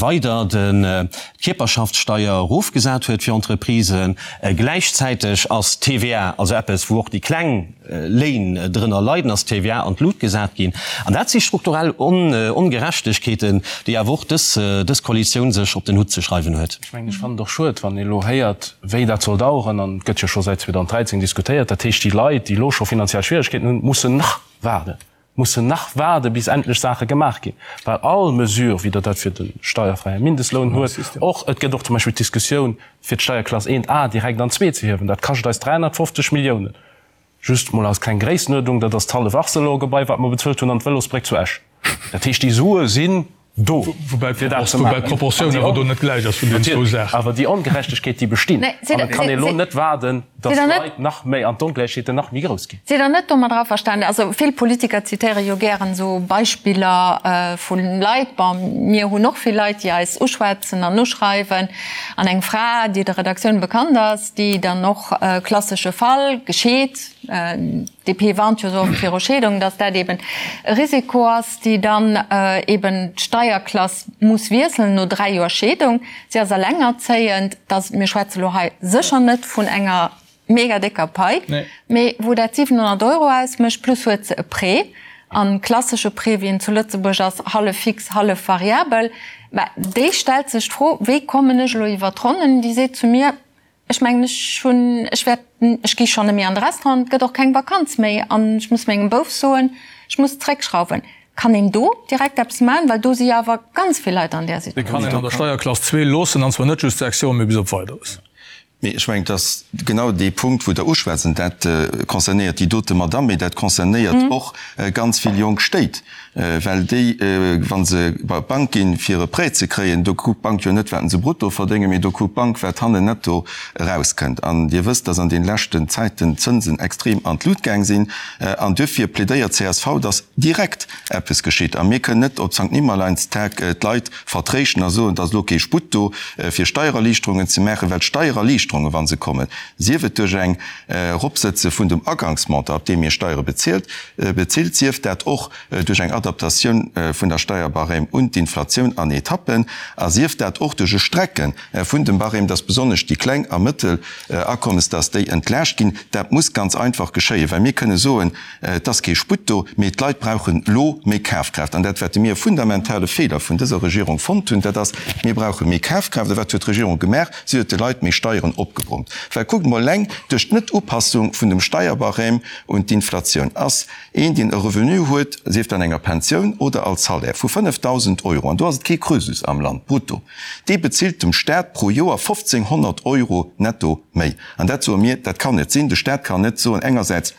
weider d'Kierperschaftssteier erofgesat huet fir Entreprisen. Gläichzäiteg ass d'TVA, also eppes, wou och déi kleng Léin drënner leiden, ass d'TVA an d'Lut gesat ginn. An dat si strukturell Ongerechtegkeeten, déi awer och dës Koalitioun sech op den Hutt ze schreiwen huet. Ech mengen, ech fannen et och schued, wann ee elo héiert, wéi dat soll daueren, an et gëtt jo scho säit 2013 diskutéiert, dat heescht, déi Leit, déi elo scho finanziell Schwieregkeeten hunn, mussen nach waarden, mussen nach waarden, bis endlech Saache gemaach ginn, well all Mesure, wéi Der dat fir de steierfräie Mindestloun huet, och, et gëtt och zum Beispill d'Diskussioun, fir d'Steierklass 1 A direkt an zwee ze hiewen, dat kascht eis 350 Milliounen, just mol als kleng Gréissenuerdnung, dat ass d'hallef Arcelor-Gebai, wat mer bezuelt hunn, an d'Vëlosbréck zu Esch. Dat heescht, déi Sue sinn do, fir dat ze maachen. Woubäi d'Proportioun awer do net gläich ass vun deenen zwou Saachen. Awer déi Ongerechtegkeet, déi bestinn. An et kann ee elo net waarden, datt d'Leit nach méi an d'Ongläichheeten nach méi grouss ginn. Sidd Der net domadder averstanen? Also vill Politiker zitéiere jo gären esou Beispiller vu Leit. Bon, mir hunn och vill Leit, déi eis uschwätzen an uschreiwen. An eng Fra, déi der Redaktioun bekannt ass, déi dann och, klassesche Fall, gescheet, d'DP warnt jo esou oft viru Scheedung, datt dat eben e Risiko ass, déi dann eben d'Steierklass muss wiesselen no 3 Joer Scheedung. Si ass elengerzéiend, dass, mir schwätze lo hei sécher net vun enger mega décker Pai, mee wou dat 700 Euro ausmécht, plus huet se e Prêt, an klassesche Prêt wéi en zu Lëtzebuerg ass, hallef fix, hallef variabel. Mä déi stellt sech d'Fro, wéi kommen ech elo iwwer d'Ronnen? Déi seet zu mir, Ech mengen, ech hunn, ech wäert, ech gi schonn net méi an de Restaurant, et gëtt och keng Vakanz méi an ech muss mengem Bouf soen, ech muss zréckschrauwen. Kann een do direkt eppes maachen? Well do si jo awer ganz vill Leit an där Situatioun. Déi kann een an der Steierklass zwee loossen, an zwar net just 6 Joer, mee bis op Weideres. Mee ech mengen, et ass genau dee Punkt, wou Der uschwätzt, an dat concernéiert déi dote Madamm, mee dat concernéiert och ganz vill jonk Stéit. Well déi, wa se bei d'Bank ginn, fir e Prêt ze kréien, do kuckt d'Bank jo net, wat se brutto verdéngen, mee do kuckt d'Bank, wat hannen netto erauskënnt. An Dir wësst, dass an de leschten Zäiten d'Zënsen extrem an d'Lut gaang sinn. An duerfir plädéiert csv, dass direkt eppes geschitt. A mir kënnen net op Sankt Nimmerleinstag d'Leit vertréischten a soen, et ass elo kee Sputt do, fir Steiererliichterungen ze maachen, well d'Steiererliichterungen, wa se kommen, sief et duerch eng Eropsëtze vun dem Agangsmontant, op deem ee Steiere bezilt, bezilt, sief dat och duerch eng Adaptatioun vun der Steierbarème un d'Inflatioun an Etappen, a sief dat och duerch e Strecke vun dem Barème, dass besonnesch déi kleng a mëttel Akommes, dass déi entlaascht ginn. Dat muss ganz einfach geschéien, well mir kënne soen, et ass kee Sputt do, mee d'Leit brauchen elo méi Kafkraaft. An dat, wat mir e fundamentale Feeler vun dëser Regierung fonnt hunn, dat ass, mir brauche méi Kafkraaft. A wat huet d'Regierung gemaach? Si huet de Leit méi Steieren opgebrummt. Well kuckt emol, eleng duerch d'Net-Upassung vun dem Steierbarème un d'Inflatioun ass een, deen e Revenu huet, sief dat an enger Pensioun oder als Salaire, vu 5.000 Euro, an do ass et kee Krösus am Land, brutto, dee bezilt dem Staat pro Joer 1.500 Euro netto méi. An dat soe mir, dat kann net sinn. De Staat kann net soen, engersäits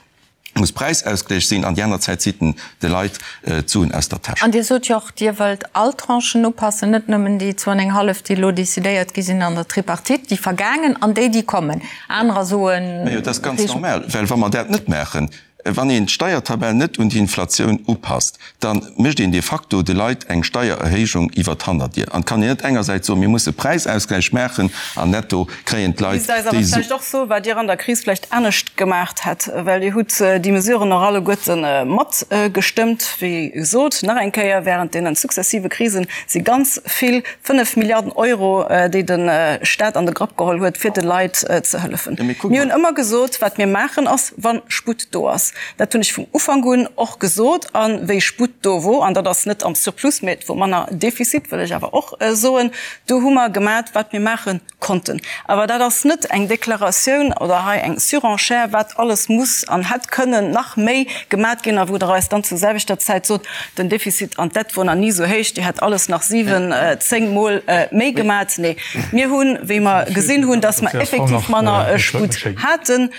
muss Präisausgléich sinn an déi aner Zäit zitt en de Leit d'Suen aus der Täsch. An Dir sot jo och, Dir wëllt all Tranchen upassen, net nëmmen déi zwou an eng hallef, déi elo decidéiert gi sinn an der Tripartite, déi vergaangen an déi, déi kommen. Anerer soen. Majo, dat ass ganz normal, well wa mer dat net maachen, wann een d'Steiertabell net un d'Inflatioun upasst, da mécht een de facto de Leit eng Steiererhéijung iwwer d'Hannerdier. An et kann een net engersäits soen, mir musse Präisausgläich maachen an netto kréien d'Leit Misst eis awer déi Su. vläicht och soen, wat Dir an der Kris vläicht anescht gemaacht hätt, well Dir hutt déi Mesuren och alleguerte matgestëmmt. Wéi gesot, nach eng Kéier, während deene successive Krisen si ganz vill, 5 Milliarden Euro, déi de Stat an de Grapp geholl huet, fir de Leit ze hëllefen. Mir hunn ëmmer gesot, wat mir maachen ass, wa Sputt do ass. Dat hunn ech vum Ufank un och gesot. A wéi Sputt do wor, an dat ass net am Surplus, mä et wor manner Defizit, wëll ech awer och soen, do hu mer gemat, wat mir maache konnten. Awer dat ass net eng Deklaratioun oder hei eng Surenchère, wat alles muss an hätt kënnen nach méi gemat ginn a wou Der eis dann zur selwechter Zäit sot, den Defizit an d'Dett wor nach ni esou héich, Dir hätt alles nach siwen, zéngmol méi gemat. Nee, mir hunn, wéi mer gesinn hunn, dass mer effektiv manner Sputt haten,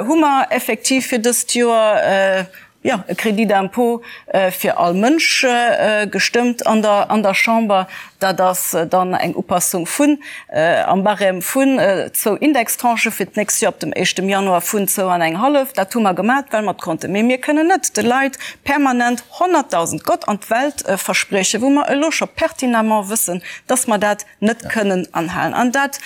hu mer effektiv fir dëst Joer, jo, e Crédit d'impôt fir all Mënsch gestëmmt an der, an der Chamber. Dat ass dann eng Upassung vun, am Barème vun zwou Indextranchë fir d'nächst Joer ab dem éischtem Januar vun zwou an eng hallef. Dat hu mer gemat, well mer et konnten. Mee mir kënnen net de Leit permanent 100.000, Gott an d'Welt verspriechen, wou mer elo scho pertinemment wëssen, dass mer dat net kënnen anhalen. An dat,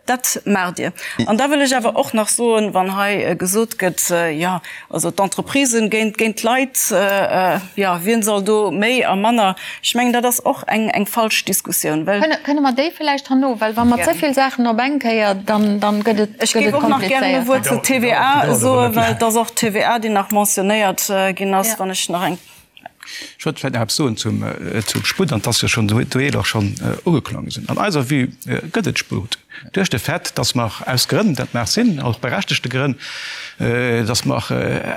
dat maacht Dir. An da wëll ech awer och nach soen, wann hei gesot gëtt, jo, also d'Entreprisen géint, géint d'Leit, jo, wien soll do méi a manner, ech mengen, dat ass och eng, eng falsch Diskussioun, well. Kënne, kënne mer déi vläicht herno, well wa mer ze vill Saachen op eng Kéier, dann, dann gëtt et, Ech géif och nach gären e Wuert zur TVA soen, well et ass och d'TVA, déi nach mentionnéiert ginn ass, wann ech nach eng. Ech wollt vläicht nach eppes soen zum Sputt, an 't ass jo schonn doheet och schonn ugeklongen. An eiser Vue gëtt et Sputt duerch de Fait, dass mer aus Grënn, dat mag sinn, och berechtegte Grënn, dass mer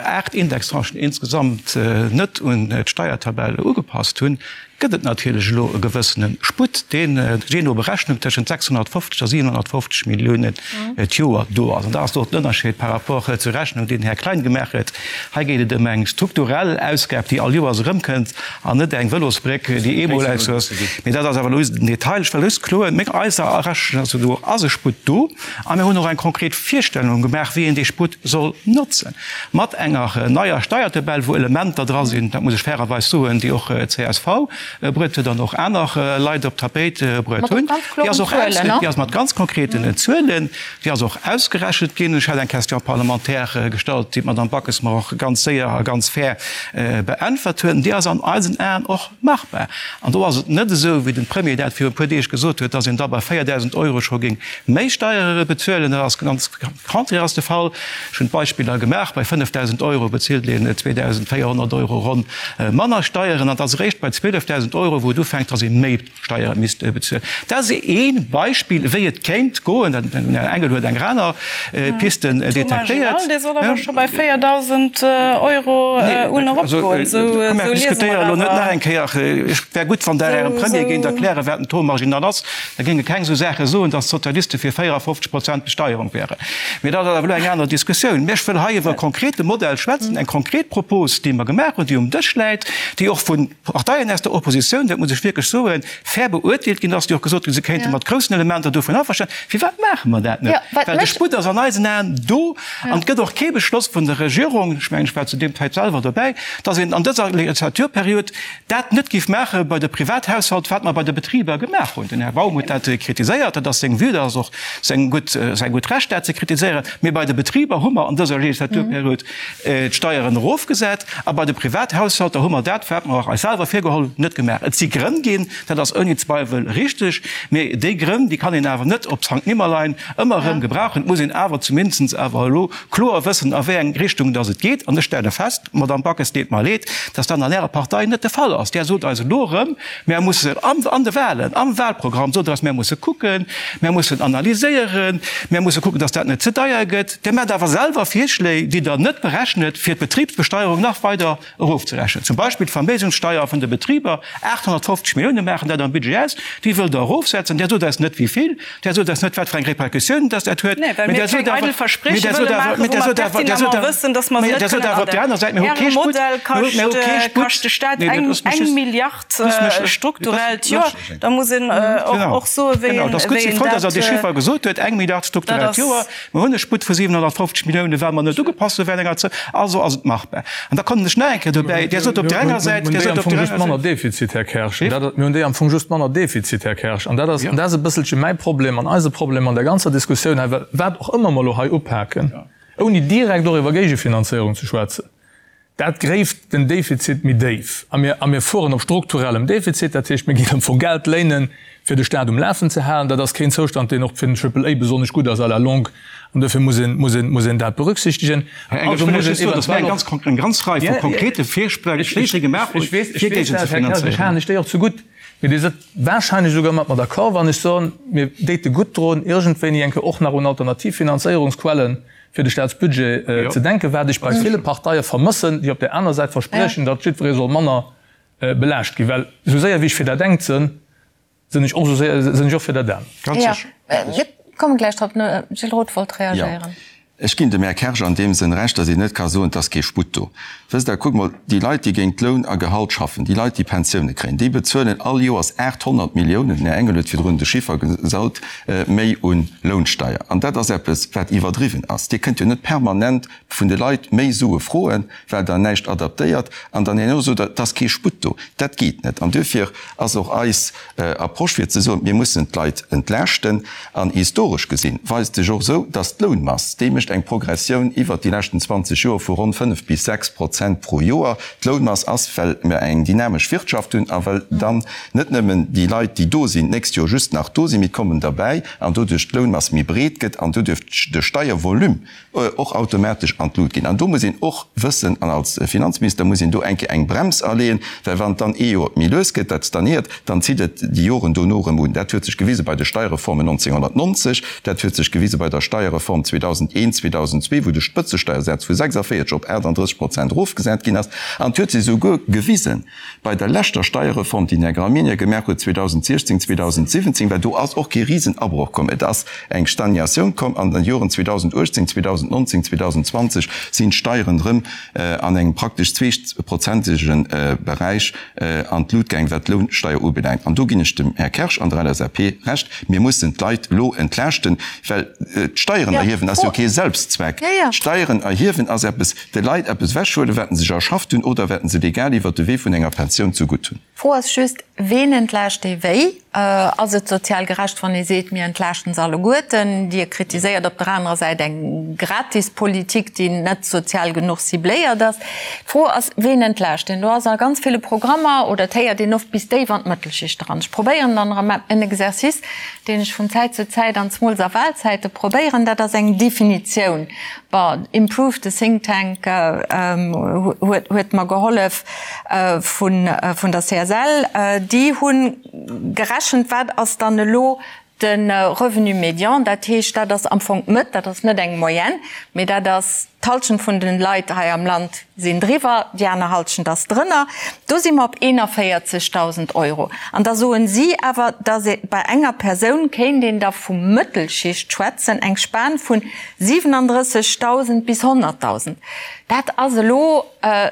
8 Indextranchen insgesamt net un d'Steiertabell ugepasst hunn, gëtt et natierlech elo e gewëssene Sputt, deen jee no Berechnung tëschent 650 a 750 Milliounen d'Joer do ass. An dat ass do den Ënnerscheed par rapport zur Rechnung, déi den Här Klein gemaach huet. Hei geet et ëm eng strukturell Ausgab, déi all Joers erëmkënnt, an net eng Vëlosbréck, déi eemol ass. Mee dat ass awer elo just en Detail. Ech wëll just kloen, Meng eiser Rechnung ass, do ass e Sputt do. A mir hunn och eng konkret Virstellung gemaach, wéi een dee Sputt soll notzen. Mat enger neier Steiertabell, wou Elementer dra sinn, dat muss ech fairerweis soen, déi och csv bruet huet an och aner Leit op d'Tapéit bruet hunn. Déi ass och déi ass mat ganz konkreten Zuelen, déi ass och ausgerechent ginn. Ech hat eng Question parlementaire gestallt, déi d'Madame Backes mer och ganz séier a ganz fair beäntwert huet. An déi ass an eisen Aen och machbar. An do ass et net esou, wéi den Premier dat viru e puer Deeg gesot huet, dass een da bei 4.000 Euro scho géing méi Steiere bezuelen. Dat ass ganz contraire ass de Fall. Ech hunn d'Beispiller gemaach, bei 5.000 Euro bezilt een 2.400 Euro ronn manner Steieren an et ass eréischt bei 12.000 Euro, wou et ufänkt, dass ee méi Steiere misst bezuelen. Dat ass ee Beispill, wéi et kéint goen. Den Här Engel huet eng aner Piste detektéiert. Dee soll awer scho bei 4.000 Euro un eropgoen. Esou liese mer awer. Elo net nach eng Kéier. Et wär gutt, wann Der Ärem Premier géint erklären, wat den Taux marginal ass. Da géinge keng esou Saache soen, datt d'Sozialiste fir 54 Prozent Besteierung wären. Mee dat ass awer elo eng aner Diskussioun. Mä ech wëll hei iwwer e konkrete Modell schwätzen, eng konkret Propos, déi mer gemaach hunn, déi um Dësch läit, déi och vu Parteien aus der Oppositioun, dat muss ech wierklech soen, fair beurteelt ginn ass, déi och gesot hunn, se kéinte mat groussen Elementer dovun averstanen. Firwat maache mer dat net? Well de Sputt ass an eisen Aen do an et gëtt och kee Beschloss vun der Regierung, ech mengen, ech war zu deem Zäit selwer dobäi, datt een an dëser Legislaturperiod dat net géif maache bei de Privathaushalt, wat mer bei de Betriber gemaach hunn. Den Här Baum huet dat kritiséiert, dat ass seng Vue, dat ass och seng gutt, säi gutt Recht, dat ze kritiséieren. Mee bei de Betriber hu mer an dëser Legislaturperiod d'Steieren erofgesat a bei de Privathaushalter hu mer dat, wat mer eis selwer virgeholl hunn, net gemaach. Et si Grënn ginn, dat ass ouni Zweiwel richteg, mee déi Grënn, déi kann een awer net op Sankt Nimmerlein ëmmer erëm gebrauchen. Et muss een awer zumindest awer elo kloer wëssen, a wéi eng Richtung dass et geet. An ech stelle fest, Madamm Backes, deet mer leed, dass dat an Ärer Partei net de Fall ass. Där sot eis elo erëm, mär mussen an de Wahlen, am Wahlprogramm sot Der eis, mär musse kucken, mär mussen analyséieren, mär musse kucken, dass dat net ze deier gëtt. Dir maacht awer selwer Virschléi, déi Der net berechnet, fir d'Betribsbesteuerung nach weider erofzerechnen. Zum Beispill d'Verméigenssteuer vun de Betriber, 850 Millioune maachen dat am Budget aus, déi wëllt Der erofsetzen. Där sot eis net wéi vill, där sot eis net wat fir eng Répercussioun dass dat huet. Mee well mir keng eidel Versprieche wëlle maachen, wou mer pertinemment wëssen, dass mer se net kënnen adecken. Äre Modell kascht de Staat eng Milliard strukturell d'Joer. Da muss een och soen, wéi een dat. Ech si frou, dass Der dee Chiffer gesot huet, eng Milliard strukturell d'Joer. Mer hunn e Sputt vu 750 Milliounen, well mer net ugepasst hu während enger Zäit. Also ass et machbar. An da kommen ech nach eng Kéier dobäi, Dir sot op där enger Säit, Dir sot op där anerer Säit. Manner Defizit, Här Kersch. Mir hunn déi am Fong just manner Defizit, Här Kersch. An dat ass, an dat ass e bësselche mäi Problem an eise Problem an der ganzer Diskussioun hei, well wat och ëmmer mer elo hei upaken, ouni direkt och iwwer Géigefinanzéierung ze schwätzen, Dat gréift den Defizit méi déif. A mir, a mir fueren op strukturellem Defizit, dat heescht, mir ginn am Fong Geld léinen, fir de Staat um Lafen ze halen. Dat ass keen Zoustand, deen och fir den Triple A besonnesch gutt ass à la longue. An duerfir muss een, muss een, muss een dat berücksichtegen. Här Engel, ech wëll lech just soen, dass mir eng ganz, eng ganz Rei vu konkrete Virschléi gemaach hunn, fir géigenzefinanzéieren. Ech halen lech déi och zegutt. Mee Dir sidd wahrscheinlech esouguer mat mer d'accord, wann ech soen, mir déite gutt drun, iergendwéini eng Kéier och nach un alternativ Finanzéierungsquellen fir de Staatsbudget ze denken, wat ech bei ville Parteie vermëssen, déi op där aner Säit verspriechen, datt jiddweree soll manner belaascht ginn. Well esou séier wéi ech fir dat engt sënn, sënn ech och esou séier sënn ech och fir dat anert. Ganz sécher. Mir komme gläich drop. Den Gilles Roth wollt reagéieren. Ech ginn dem Här Kersch an deem Sënn Recht, datt een net ka soen, et ass kee Sputt do. Wësst Der, kuckt mol, déi Leit, déi géint Loun a Gehalt schaffen, déi Leit, déi Pensioune kréien, déi bezuelen all Joers 800 Milliounen, den Här Engel huet virdrun de Chiffer gesot, méi u Lounsteier. An dat ass eppes, wat iwwerdriwwen ass. Dir kënnt jo net permanent vun de Leit méi Sue froen, well Der näischt adaptéiert, an dann herno sot Der, et ass kee Sputt do. Dat geet net. An duerfir ass och eis Approche fir ze soen, mir mussen d'Leit entlaaschten. An historesch gesinn weist sech och esou, datt d'Lounmass, déi mécht eng Progressioun iwwert déi leschten 20 Joer vu ronn 5 bis 6 Prozent pro Joer. D'Lounmass ass, well mir eng dynamesch Wirtschaft hunn a well dann net nëmmen déi Leit, déi do sinn, d'nächst Joer just nach do sinn, mee et kommen derbäi an doduerch d'Lounmass méi breet gëtt an doduerch de Steiervolume och automatesch an d'Lut ginn. An do muss een och wëssen, an als Finanzminister muss een do eng Kéier eng Brems aleeën, well wann et dann ee Joer méi lues gëtt, dat stagnéiert, dann zitt et déi Joren dono erëm un. Dat huet sech gewise bei de Steierreformen 1990, dat huet sech gewise bei der Steierreform 2001, 2002, wou de Spëtzesteiersaz vu 46 op 38 Prozent erofgesat ginn ass. An et huet sech esouguer gewisen, Bei der leschter Steierreform, déi den Här Gramegna gemaach huet 2016, 2017, well do ass och kee Risenabroch komm, et ass eng Stagnatioun komm an den Joren 2018, 2019, 2020 sinn d'Steieren erëm an engem praktesch zweeprozentege Beräich an d'Lut gaang, wat d'Lounsteier ubelaangt. An do ginn ech dem Här Kersch an der LSAP Recht, Mir mussen d'Leit elo entlaaschten, well d'Steieren erhiewen ass jo kee Selbstzweck. D'Steieren erhiewen ass eppes, De Leit eppes ewechhuelen, wat se sech erschafft hunn oder wat se legal iwwert de Wee vun enger Pensioun zegutt hunn. D'Fro ass just, Ween entlaascht ee wéi? Ass et sozial gerecht, wann ee seet, mir entlaaschten se alleguerten? Dir kritiséiert op der anerer Säit eng Gratispolitik, déi net sozial genuch cibléiert ass. D'Fro ass, Ween entlaascht een? Do ass a ganz ville Programmer, oder et héiert een oft, bis déif an d'Mëttelschicht eran. Ech probéieren dann erëm en Exercice, deen ech vun Zäit zu Zäit an zemools a Wahlzäite probéieren, dat ass eng Definitioun. Bon, Improve, de Think Tank huet mer gehollef vun der CSL. Déi hu gerechent, wat ass dann elo de Revenu médian. Dat heescht, dat ass am Fong d'Mëtt, dat ass net eng Moyenne, mee dat ass d'Halschent vun de Leit hei am Land sinn driwwer, déi aner Halschent ass drënner. Do si mer op 41.000 Euro. An da soen si awer, dass ee bei enger Persoun kéint een da vu Mëttelschicht schwätzen, eng Span vun 37.000 bis 100.000, dat ass elo e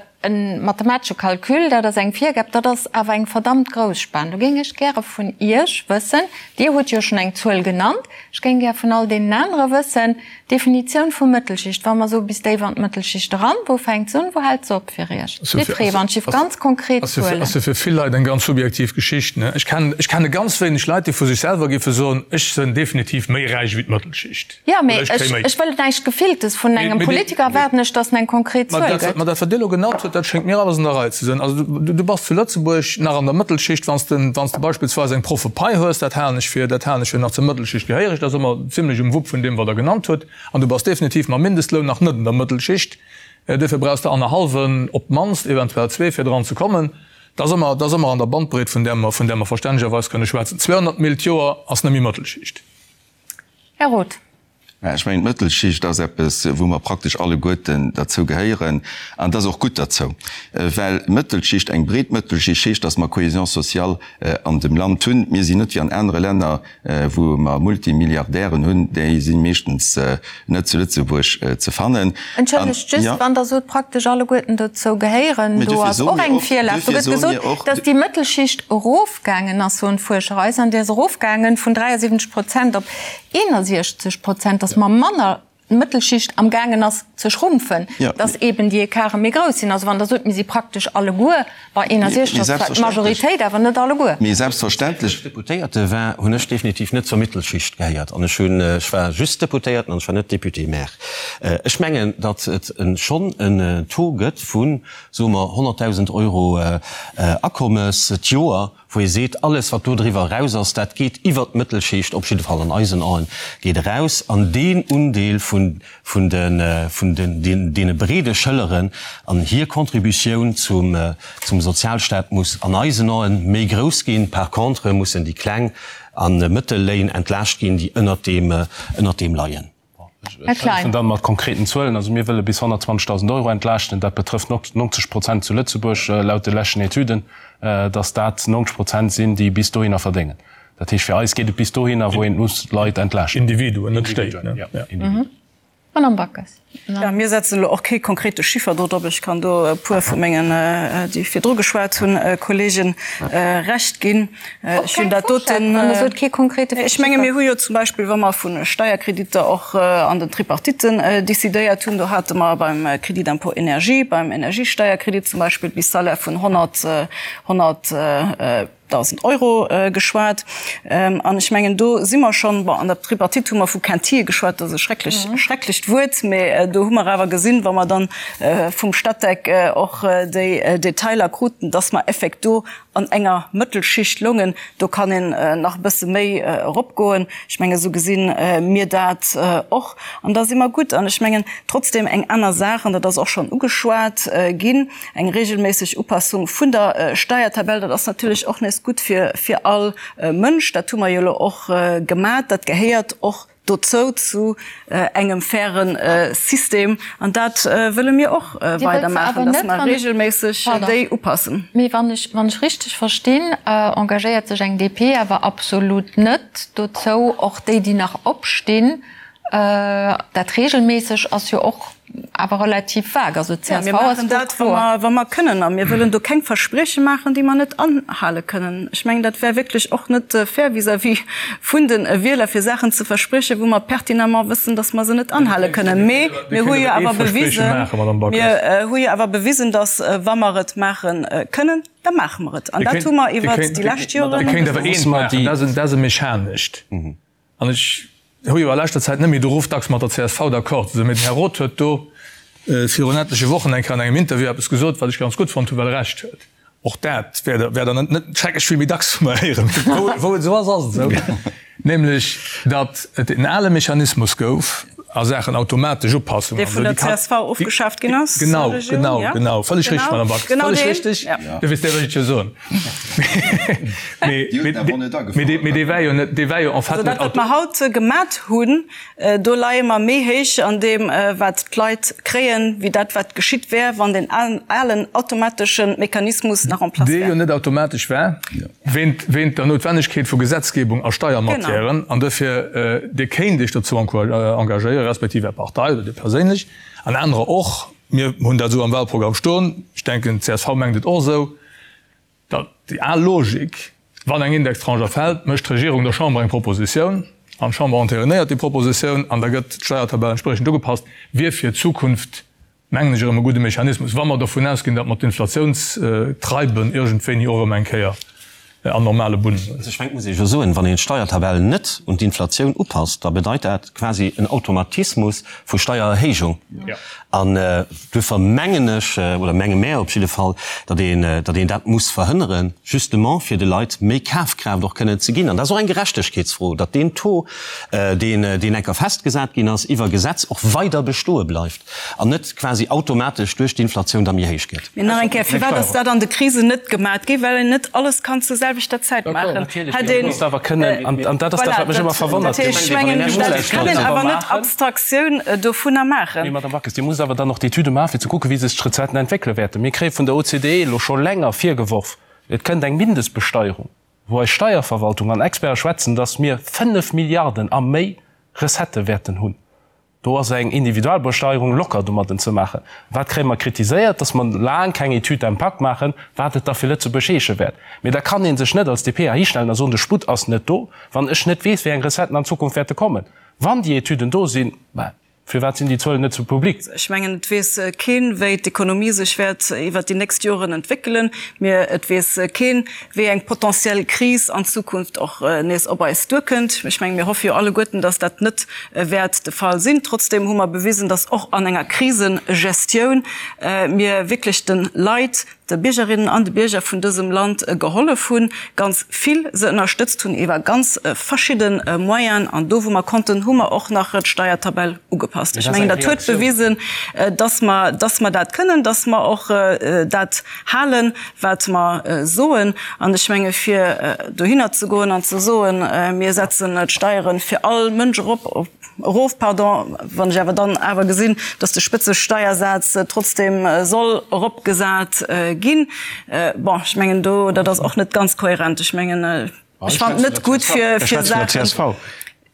mathematesche Calcul, dat ass eng Virgab, dat ass awer eng verdammt grouss Span. Do géing ech gäre vun Iech wëssen, Dir hutt jo schonn eng Zuel genannt, ech géing gär vun all deenen anere wëssen, D'Definitioun vu Mëttelschicht, wa mer soe bis déif an d'Mëttelschicht eran, wou fänkt se un, wou hält se op fir Iech? Jiddweree, wann ech ganz konkret Zuelen. Ass jo fir vill Leit eng ganz subjektiv Geschicht, ne? Ech kennen, ech kenne ganz wéineg Leit, déi vu sech selwer géife soen, ech sënn definitiv méi räich wéi d'Mëttelschicht. Jo, mee ech wëll näischt Gefilltes. Vun engem Politiker erwaarden ech, datt en eng konkret Zuel gëtt. Mä dat, wat Dir elo genannt hutt, dat schéngt mir alles an der Rei ze sinn. Also du bass zu Lëtzebuerg nach an der Mëttelschicht, wann s de, wann s de beispillsweis eng Proffepai hues, dat halen ech fir, dat halen ech fir nach zur Mëttelschicht gehéiereg, dat ass ëmmer zimlech um Wupp vun deem, wat Der genannt hutt. An du bass definitiv mam Mindestloun nach net an der Mëttelschicht. Duerfir brauchs de annerhallwen op d'mannst, eventuell zwee, fir dran ze kommen. Dat ass ëmmer, dat ass ëmmer an der Bandbreet, vun där mer, vun där mer verstännegerweis kënne schwätzen. 200 Mille d'Joer ass net méi Mëttelschicht. Här Roth. Mä ech mengen, d'Mëttelschicht ass eppes, wou mer praktesch alleguerten derzou gehéieren. An et ass och gutt derzou, well Mëttelschicht, eng breet Mëttelschicht heescht, dass mer Cohésion sociale an dem Land hunn. Mir sinn net wéi an anere Länner, wou mer Multimilliardären hunn, déi si meeschtens net zu Lëtzebuerg ze fannen. Entschëllegt, just, wann Der sot, praktesch alleguerten dozou gehéieren, do ass och eng Virlag. Do gëtt gesot, dass déi Mëttelschicht erof. Gaangen ass, soen d'Fuerscher eis, an déi ass erofgaangen vun 73 Prozent op 61 Prozent, dass mer manner d'Mëttelschicht am gaangen ass ze schrumpfen, dass eben déi Ecarte méi grouss sinn. Also wann Der sot, mir si praktesch alleguer bei 61, ass zwar d'Majoritéit, awer net alleguer. Mee selbstverständlech. Wéi ech Deputéierte war, hunn ech definitiv net zur Mittelschicht gehéiert an ech hunn, ech war just Deputéierten an ech war net Député-maire. Ech mengen, datt et schonn en Taux gëtt vu soe mer, 100.000 Euro Akommes d'Joer, wou ee seet, alles wat do driwwer eraus ass, dat geet iwwert d'Mëttelschicht, op jidde Fall an eisen Aen, geet eraus. An deen Undeel vun, vun de, vun den, deene breede Schëlleren an hir Contributioun zum, zum Sozialstaat muss an eisen Aen méi grouss ginn. Par contre mussen déi kleng a mëttel Léin entlaascht ginn, déi ënnert deem, ënnert deem leien. Ech hëllefen dann mat konkreten Zuelen. Also mir wëlle bis 120.000 Euro entlaaschten. Dat betrëfft 90 Prozent zu Lëtzebuerg laut de leschten Etüden, dass dat 90 Prozent sinn, déi bis dohinner verdéngen. Dat heescht, fir eis geet et bis dohinner, wou een muss Leit entlaaschten. Individuen, net Stéit, ne? Jo, Individuen. Madamm Backes. Jo, mir setzen elo och kee konkrete Chiffer do drop. Ech kann do e puer vu mengen, déi virdru geschwat hunn, Kollegen Recht ginn. Ech hunn dat doten. Wann Der sot, kee konkrete Chiffer. Ech menge mir hu jo zum Beispill, wa mer vu Steierkreditter och an den Tripartitten decidéiert hunn, do hate mer beim Crédit d'impôt énergie, beim Energiesteierkredit zum Beispill bis Salaire vun 100, 100, 1.000 Euro geschwat. An ech mengen, do si mer schonn, bon, an der Tripartite hu mer vu Quintille geschwat, dat ass e schrecklech, schrecklecht Wuert, mä do hu mer awer gesinn, wa mer dann vum Statec och déi Detailer kruten, dass mer effekt do an enger Mëttelschicht loungen. Do kann een nach e bësse méi eropgoen. Ech mengen, esou gesi mir dat och. An da si mer gutt. An ech mengen, trotzdem eng aner Saach, an dat ass och schonn ugeschwat ginn, Eng regelméisseg Upassung vun der Steiertabell, dat ass natierlech och nees gutt fir all Mënsch. Dat hu mer jo elo och gemat. Dat gehéiert och dozou, zu engem faire System. An dat wëlle mir och weidermaachen, dass mer regelméisseg déi upassen. Mee wann ech, wann ech richteg verstinn, engagéiert sech eng DP awer absolut net dozou, och déi, déi nach opstinn, Dat regelméisseg ass jo och awer relativ vague. Also d'CSV ass do kloer. Mir maachen dat, wa mer kënnen. A mir wëllen do keng Versprieche maachen, déi mer net anhale kënnen. Ech mengen, dat wär wierklech och net fair vis-à-vis vun de Wieler, fir Saachen ze verspriechen, wou mer pertinemment wëssen, datt mer se net anhale kënnen. Mee mir hu jo awer bewisen, mir hu jo awer bewisen, datt, wa mer et maache kënnen, da maache mer et. An dat hu mer iwwert déi lescht Joren. Dir kéint awer eent maachen, dat ass e mechanescht. An ech hu jo a leschter Zäit net méi de Ruff, dacks mat der csv d'accord ze sinn, mee den Här Roth huet do virun etleche Wochen eng Kéier an engem Interview eppes gesot, wat ech ganz gutt fonnt hunn, well e Recht huet. Och dat wäert Der net schrecklech vill méi dacks vu mer héieren. Wou et esou ass, ass et esou, nämlech datt et en ale Mechanismus gouf a Saachen automatesch Upassungen. Dee vun der csv ofgeschaaft ginn ass? Genau, genau, genau. Vëlleg richteg, Madame Backes. Vëlleg richteg. Du weess, dat wëll ech jo soen. Mee dee war jo net, dee war jo en fait net. Also dat, wat mer haut gemat hunn, do leie mer méi héich an deem, wat d'Leit kréien, wéi dat, wat geschitt wär, wann deen alen automatesche Mechanismus nach en place wär. Dee jo net automatesch war, wéint der Noutwennegkeet vu Gesetzgebung a Steiermatièren. An duerfir, Dir kéint Iech dozou engagéieren, respektiv Är Partei oder Dir perséinlech an anerer och, mir hunn dat esou am Wahlprogramm stoen, ech denken, d'CSV mengt et och esou, Datt déi al Logik, wann eng Indextranche erfält, mécht d'Regierung der Chamber eng Propositioun an d'Chamber enterinéiert déi Propositioun an da gëtt d'Steiertabell entspriechend ugepasst, wier fir d'Zukunft, mengen ech, erëm e gudde Mechanismus, wa mer dovun ausginn, datt mer d'Inflatiounstreiben iergendwéini och erëm eng Kéier an normale Bunnen hunn. Also ech mengen, et muss ee jo soen, wann een d'Steiertabell net un d'Inflatioun upasst, da bedeit dat quasi en Automatismus vu Steiererhéijung. An duerfir mengen ech, oder menge mär op jidde Fall, datt een, datt een dat muss verhënneren, justement fir de Leit méi Kafkraaft och kënnen ze ginn. An dat ass och eng Gerechtegkeetsfro, datt deen Taux, deen, deen enker festgesat ginn ass iwwer Gesetz, och weider bestoe bleift an net quasi automatesch duerch d'Inflatioun da méi héich gëtt. Mee nach eng Kéier, Firwat ass dat an de Krisen net gemat gi? Well een net alles kann zur selwechter Zäit maachen. Hätt een. An dat ass dat, wat mech ëmmer verwonnert. Dat heescht, ech mengen, dat kann een awer net Abstraktioun dovunner maachen. Mee Madamm Backes, Dir musst awer dann och d'Etüde maachen, fir ze kucken, wéi sech d'Recetten entwéckele wäerten. Mir kréie vun der OCDE elo scho länger virgeworf, et kënnt eng Mindestbesteierung, wou eis Steierverwaltung an Experte schwätzen, datt mir 5 Milliarden a méi Recettë wäerten hunn. Do ass eng Individualbesteierung locker domadden ze maachen. Wat kréie mer kritiséiert? Dass mer laang keng Étude d'impact maachen, wat et da fir Lëtzebuerg heesche wäert. Mee da kann ee sech net als DP heihinstellen a soen, de Sputt ass net do, wann ech net weess, wéi eng Recetten an Zukunft wäerte kommen. Wann déi Etüden do sinn, ben, firwat sinn déi Zuelen net zu public? Ech mengen, et weess keen, wéi d'Ekonomie sech wäert iwwert déi nächst Joren entwéckelen. Mir, et weess keen, wéi eng potentiell Kris an Zukunft och nees op eis duerkënnt. Ech mengen, mir hoffe jo alleguerten, dass dat net wäert de Fall sinn. Trotzdem hu mer bewisen, dass och an enger Krisegestioun mir wierklech de Leit, de Biergerinnen an de Bierger vun dësem Land gehollef hunn, ganz vill se ënnerstëtzt hunn iwwer ganz verschidde Moyenen. An do, wou mer konnten, hu mer och nach d'Steiertabell ugepasst. Ech mengen, dat huet bewisen, dass mer, dass mer dat kënnen, dass mer och dat halen, wat mer soen. An ech menge fir dohinner ze goen an ze soen, mir setzen d'Steiere fir all Mënsch erop, erof, pardon, wann ech awer dann awer gesinn, datt de Spëtzesteiersaz trotzdem soll eropgesat ginn, bon, ech mengen do, dat ass och net ganz kohärent. Ech mengen, ech fannen et net gutt fir Saachen.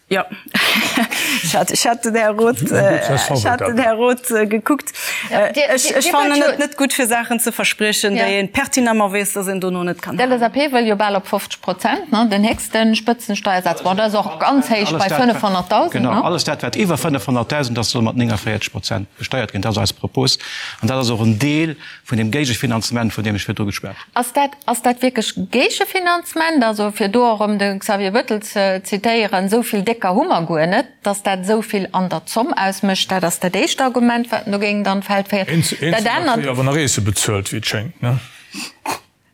Jo, ech hat den Här Roth, ech hat den Här Roth gekuckt. Ech fannen et net gutt, fir Saachen ze verspriechen, déi ee pertinemment weess, dass een dono net kann halen. D'LSAP wëll jo bal op 50 Prozent, ne, den héchste Spëtzensteiersaz. Bon, dat ass och ganz héich bei 500.000, ne? Genau, alles dat, wat iwwer 500.000 ass, soll mat 49 Prozent besteiert ginn. Dat ass eis Propos an dat ass och en Deel vun deem Géigefinanzement, vun deem ech virdru geschwat hunn. Ass dat, ass dat wierklech Géigefinanzement? Also, fir do och erëm de Xavier Bettel ze zitéieren, esou vill Décker hu mer guer net, datt dat esou vill an der Zomm ausmécht. Dat ass dat éischt Argument, wat en do géing an d'Feld féieren. Dat anert. Eenzelner kréie awer nach eesse bezuelt, wéi et schéngt, ne?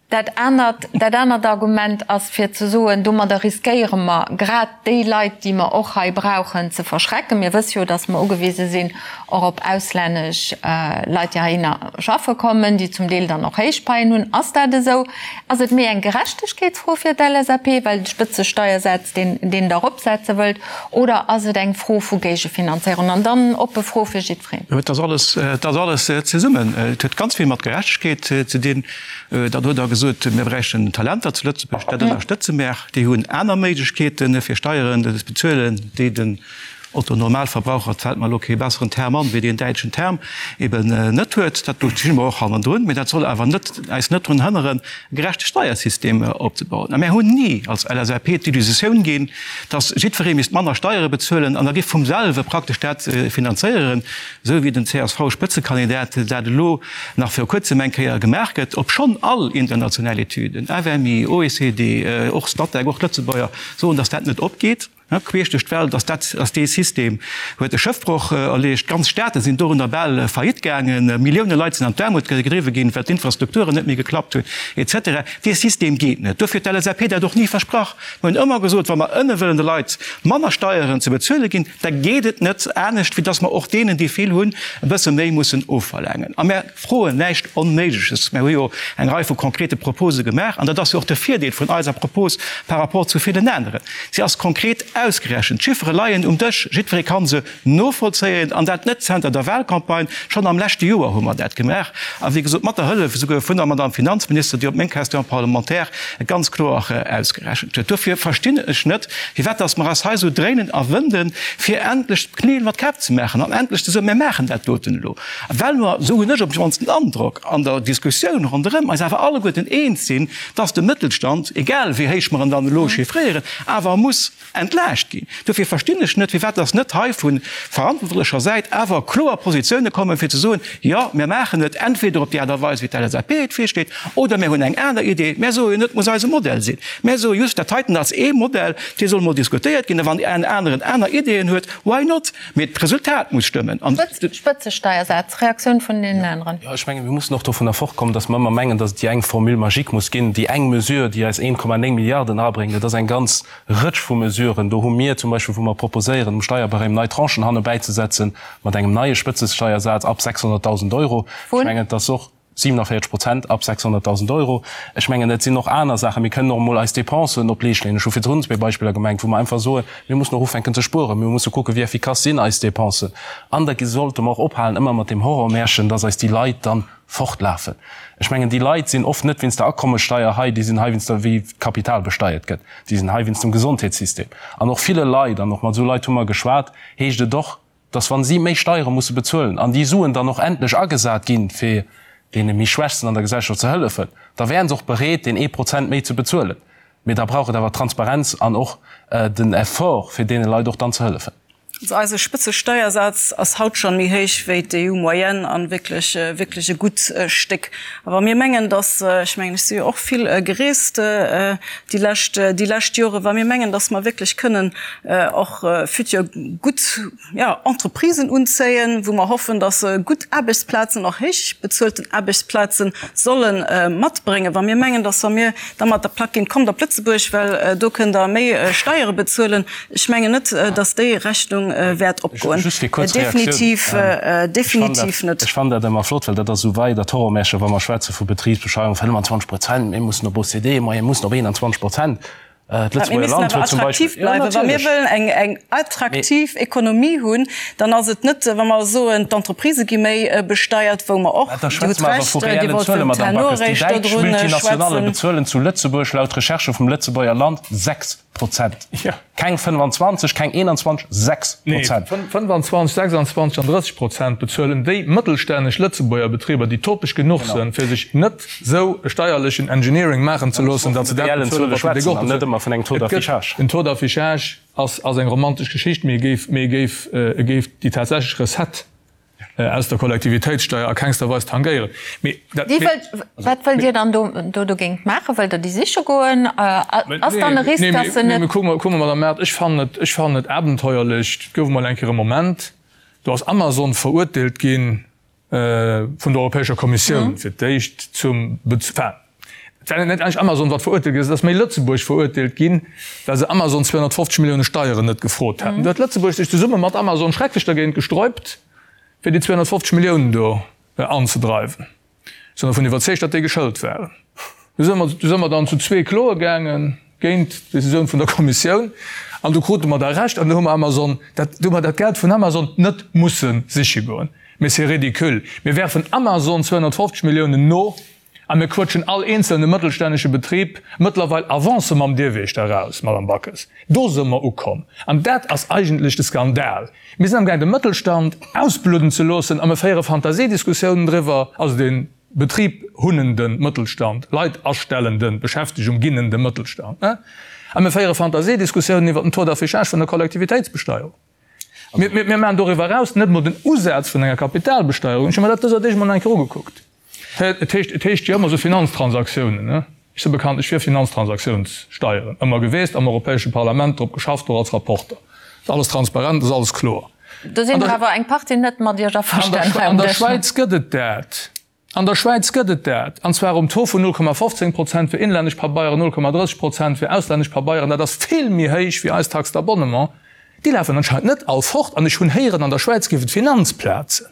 Dat anert, dat anert Argument ass fir ze soen, domadder riskéiere mer grad déi Leit, déi mer och hei brauchen, ze verschrecken. Mir wësse jo, datt mer ugewise sinn och op auslännesch Leit, déi heihinner schaffe kommen, déi zum Deel dann och héich Paien hunn. Ass dat esou? Ass et méi eng Gerechtegkeetsfro fir d'LSAP, well de Spëtzesteiersaz, deen, deen Der eropsetze wëllt, oder ass et eng Fro vu Géigefinanzéierung? An dann oppe Fro fir jiddwereen. Et ass alles, et ass alles zesummen. Et huet ganz vill mat Gerechtegkeet ze dinn. Dann huet Der gesot, mir bräichten Talenter zu Lëtzebuerg. Dat ënnerstëtze mär. Déi hunn aner Méiglechkeeten, fir Steieren ze bezuelen, déi den Otto Normalverbraucher, et fält mer elo kee besseren Term an, wéi deen däitschen Term, eben net huet. Dat do sti mer och hannendrun. Mee dat soll awer net, eis net drun hënneren, e gerechte Steiersystem opzebauen. A mär hunn ni als LSAP d'Illusioun ginn, dass jiddweree misst manner Steiere bezuelen an da géif vum selwe praktesch dat finanzéieren, esou wéi den CSV-Spëtzekandidat dat elo nach viru kuerzem eng Kéier gemaach gëtt, obschonn all international Etüden, FMI, OECD, och Statec, och d'Lëtzebuerger, soen, datt dat net opgeet, queesch duerch d'Welt, datt dat, datt dee System huet e Schëffbroch erleegt, ganz Staate sinn dorunner bal faillite gaangen, Millioune Leit sinn an d'Aarmut gedriwwe ginn, well d'Infrastrukturen net méi geklappt hunn, et cetera. Dee System geet net. Dofir huet d'LSAP dat och ni versprach. Mir hunn ëmmer gesot, wa mer ënne wëllen de Leit manner Steieren ze bezuele ginn, Da geet et net anescht, wéi dass mer och deenen, déi vill hunn, e bësse méi mussen ofverlaangen. A mär froen näischt Onméigleches. Mär hu jo eng Rei vu konkrete Propose gemaach. An dat ass jo och de Virdeel vun eiser Propos par rapport zu villen aneren, Si ass konkret ausgerechent. D'Chiffere leien um Dësch, jiddweree ka se novollzéien. An dat net zenter der Wahlcampagne, schonn am leschte Joer hu mer dat gemaach. A wéi gesot, mat der Hëllef esouguer vun der Madame Finanzminister, déi op meng Question parlementaire ganz kloer ausgerechent huet. Dofir verstinn ech net, firwat dass mer eis hei esou dréinen a wënden, fir endlech d'Knél mat Käpp ze maachen an endlech ze soen, Mir maachen dat doten elo, well mer, esou hunn ech op d'mannst den Androck an der Diskussioun ronderëm, eis awer alleguerten eens sinn, dass de Mëttelstand, egal wéi héich mer en dann elo chiffréieren, awer muss entlaascht ginn. Dofir verstinn ech net, firwat dass net hei vu verantwortlecher Säit awer kloer Positioune kommen, fir ze soen, Jo, mir maachen et entweder op déi Aart a Weis, wéi d'LSAP et virsteet, oder mir hunn eng aner Idee. Mär soe jo net, et muss eise Modell sinn. Mär soe just, dat heiten ass ee Modell, dee soll mol diskutéiert ginn. A wann en aneren aner Ideeën huet, why not? Mee d'Resultat muss stëmmen. An. Spëtzesteiersaz, Reaktioun vun deenen aneren. Jo, ech mengen, mir mussen och dovunner fortkommen, datt mer ëmmer mengen, datt et déi eng Formule magique muss ginn, déi eng Mesure, déi eis 1,9 Milliarden erabréngt. Et ass eng ganz Rëtsch vu Mesuren. Do hu mir zum Beispill, wou mer proposéieren, um Steierbarème nei Tranchen hanne bäizesetzen, mat engem neie Spëtzesteiersaz ab 600.000 Euro. Ech mengen, et ass och 47 Prozent ab 600.000 Euro. Ech mengen, et sinn och aner Saachen. Mir kënnen och emol eis Dépensen op d'Leescht leeën. Ech hu virdrun zwee Beispiller gemengt, wou mer einfach soen, mir mussen och ufänken ze spueren, mir musse kucken, wéi effikass sinn eis Dépensen. An da sollte mer och ophalen ëmmer mat deem Horrormärchen, dass eis déi Leit dann fortlafen. Ech mengen, déi Leit sinn oft net wéinst der Akommessteier hei, déi sinn hei wéinst der, wéi d'Kapital besteiert gëtt, déi sinn hei wéinst dem Gesondheetssystem. An och ville Leit, an och mat esou Leit hu mer geschwat, heescht et och, dass wa si méi Steiere musse bezuelen an déi Suen dann och endlech agesat ginn, fir deene méi Schwächsten an der Gesellschaft ze hëllefen, da wären se och bereet, deen ee Prozent méi ze bezuelen. Mee da brauch et awer Transparenz an och den Effort, fir deene Leit och dann ze hëllefen. Also eise Spëtzesteiersaz ass haut schonn méi héich wéi d'EU-Moyenne an wierklech, wierklech e gutt Stéck. A wa mir mengen, dass, ech mengen, ech si jo och vill gereest déi lescht, déi lescht Joren, wa mir mengen, dass mer wierklech kënnen och futur gutt, jo, Entreprisen unzéien, wou mer hoffen, dass se gutt Aarbechtsplazen, och héich bezuelten Aarbechtsplaze solle matbréngen, wa mir mengen, dass wa mir da mat der Plack ginn, kommt op Lëtzebuerg, well do kënnt Der méi Steiere bezuelen, Ech mengen net, datt déi Rechnung wäert opgoen. Just fir kuerz Reaktioun. Definitiv, definitiv net. Ech fannen dat ëmmer flott, well dat ass esou wei dat Horrormärchen, wa mer schwätze vu Betribsbesteuerung, 25 Prozent, mir mussen op OCDE-Moyenne, mir mussen op 21 Prozent. D'Lëtzebuerger Land huet zum Beispill. Mir missen awer attraktiv bleiwen. Wa mir wëllen eng, eng attraktiv Ekonomie hunn, dann ass et net, wa mer soen, d'Entreprisë gi méi besteiert, wou mer och, Dir hutt Recht, Dir wollt vum Herr Noerich Déi däitsch dodrun Multinationale schwätzen. bezuelen zu Lëtzebuerg laut Recherchë vum Lëtzebuerger Land 6%. Keng 25, keng 21, 6 Nee, Prozent. 25, 26 an 30 Prozent bezuelen déi mëttelstänneg Lëtzebuerger Betriber, déi topeg genuch sinn, fir sech net esou e steierlechen Engineering maachen ze loossen, datt se dat bezuelen, wat de de Gott bezuelt. Et gëtt, den Taux d'affichage ass, ass eng romantesch Geschicht, mee e géif, mee e géif, e géif déi tatsächlech Recette aus der Kollektivitéitssteier a kengster Weis tangéieren. Mee dat, Déi wëllt, wat wëllt Dir dann do, do dogéint maachen? Wëllt Der déi siche goen? Ass dann e Risk, datt se net. Nee, mee kucke mer, kucke mer, Madame Mart, ech fannen et, ech fannen et abenteuerlech, et gouf emol eng Kéier e Moment, do ass Amazon verurteelt gi vun der Europäescher Kommissioun fir d'éischt zum, enfin, Et war net eigentlech Amazon, wat verurteelt ginn ass, et ass méi Lëtzebuerg verurteelt ginn, well se Amazon 250 Millioune Steieren net gefrot haten. Do huet Lëtzebuerg sech zesumme mat Amazon schrecklech dergéint gesträubt, fir déi 250 Milliounen do anzedreiwen. Ech sinn dervun iwwerzeegt, datt déi geschëlt waren. Du si mer, du si mer dann zu zwee kloe gaange géint d'Decisioun vun der Kommissioun an du krute mer da Recht an du hu mer Amazon dat, du hu mer dat Geld vun Amazon net musse siche goen. Mee c'est ridicule. Mir werfen Amazon 250 Milliounen no A mir quëtschen all eenzelne mëttelstännesche Betrib mëttlerweil Avancë mam Dierwiechter eraus, Madame Backes. Do se mer ukomm. An dat ass eigentlech de Skandal. Mir sinn amgaang de Mëttelstand ausbludden ze loossen a mir féiere Fantasiediskussiounen driwwer, also de Betrib hunnende Mëttelstand, Leit astellenden, Beschäftegung ginnende Mëttelstand, a mir féiere Fantasiediskussiounen iwwert den Taux d'affichage vun der Kollektivitéitsbesteierung. Mir maachen doriwwer eraus net emol den Usaz vun enger Kapitalbesteierung. Ech hu mer dat dëser Deeg emol nach eng Kéier ugekuckt. Et heescht, et heescht jo ëmmer esou Finanztransaktiounen, ne? Ech si bekanntlech fir Finanztransaktiounssteieren ëmmer geweest, am Europäesche Parlament drop geschafft, och als Rapporter. Ass alles transparent, ass alles kloer. Do sinn der awer eng Partie net mat Iech averstanen hei um Dësch. An der Schwäiz gëtt et dat. An der Schwäiz gëtt et dat, an zwar um Taux vun 0,15 Prozent fir inlännesch Pabeieren, 0,30 Prozent fir auslännesch Pabeieren. Dat ass vill méi héich wéi eis Taxe d'abonnement. Déi lafen anscheinend net all fort. An ech hunn héieren, an der Schwäiz géif et Finanzplazen.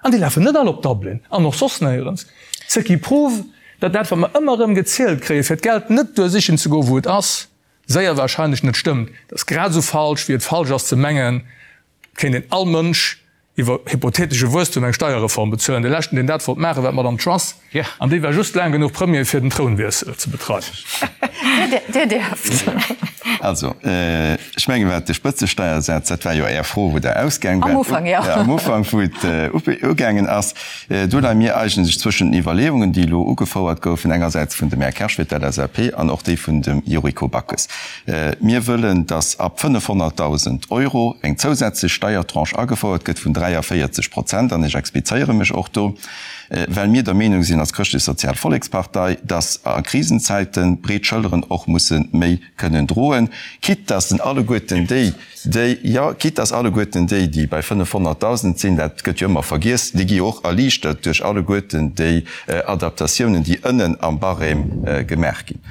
An déi lafen net all op Dublin an och soss néierens. Ce qui prouve, datt dat, wat mer ëmmer erëm gezielt kréien, fir d'Geld net duer sichen ze goen, wou et ass, séier wahrscheinlech net stëmmt. Dat ass grad esou falsch, wéi et falsch ass ze mengen, et kéint een all Mënsch iwwer hypothetesche Wuesstum eng Steierreform bezuelen. De leschten, deen dat wollt maachen, war d'Madame Truss, an déi war just laang genuch Premier, fir den Trounwiessel ze betreiwen. Dir däerft. Also, ech mengen, wat de Spëtzesteiersaz, dat war jo Är Fro, wou Der ausgaang waart. Am Ufank, jo. Am Ufank, wou et ugaangen ass. Do leie mir eigentlech zwëschen den Iwwerleeungen, déi elo ugefouert goufen, engersäits vun dem Här Kersch fir d'LSAP an och déi vun dem Yuriko Backes. Mir wëllen, dass ab 500.000 Euro eng zousätzlech Steiertranche agefouert gëtt vun 43 Prozent, an ech explizéiere mech och do, well mir der Meenung sinn als Chrëschtlech-Sozial Vollekspartei, dass a Krisenzäiten breet Schëlleren och musse méi kënnen droen, quitte dass en alleguerten déi, déi, jo, quitte dass alleguerten déi, déi bei 500.000 sinn, dat gëtt jo ëmmer vergiess, déi gi jo och erliichtert duerch alleguerten déi Adaptatiounen, déi ënnen am Barème gemaach ginn.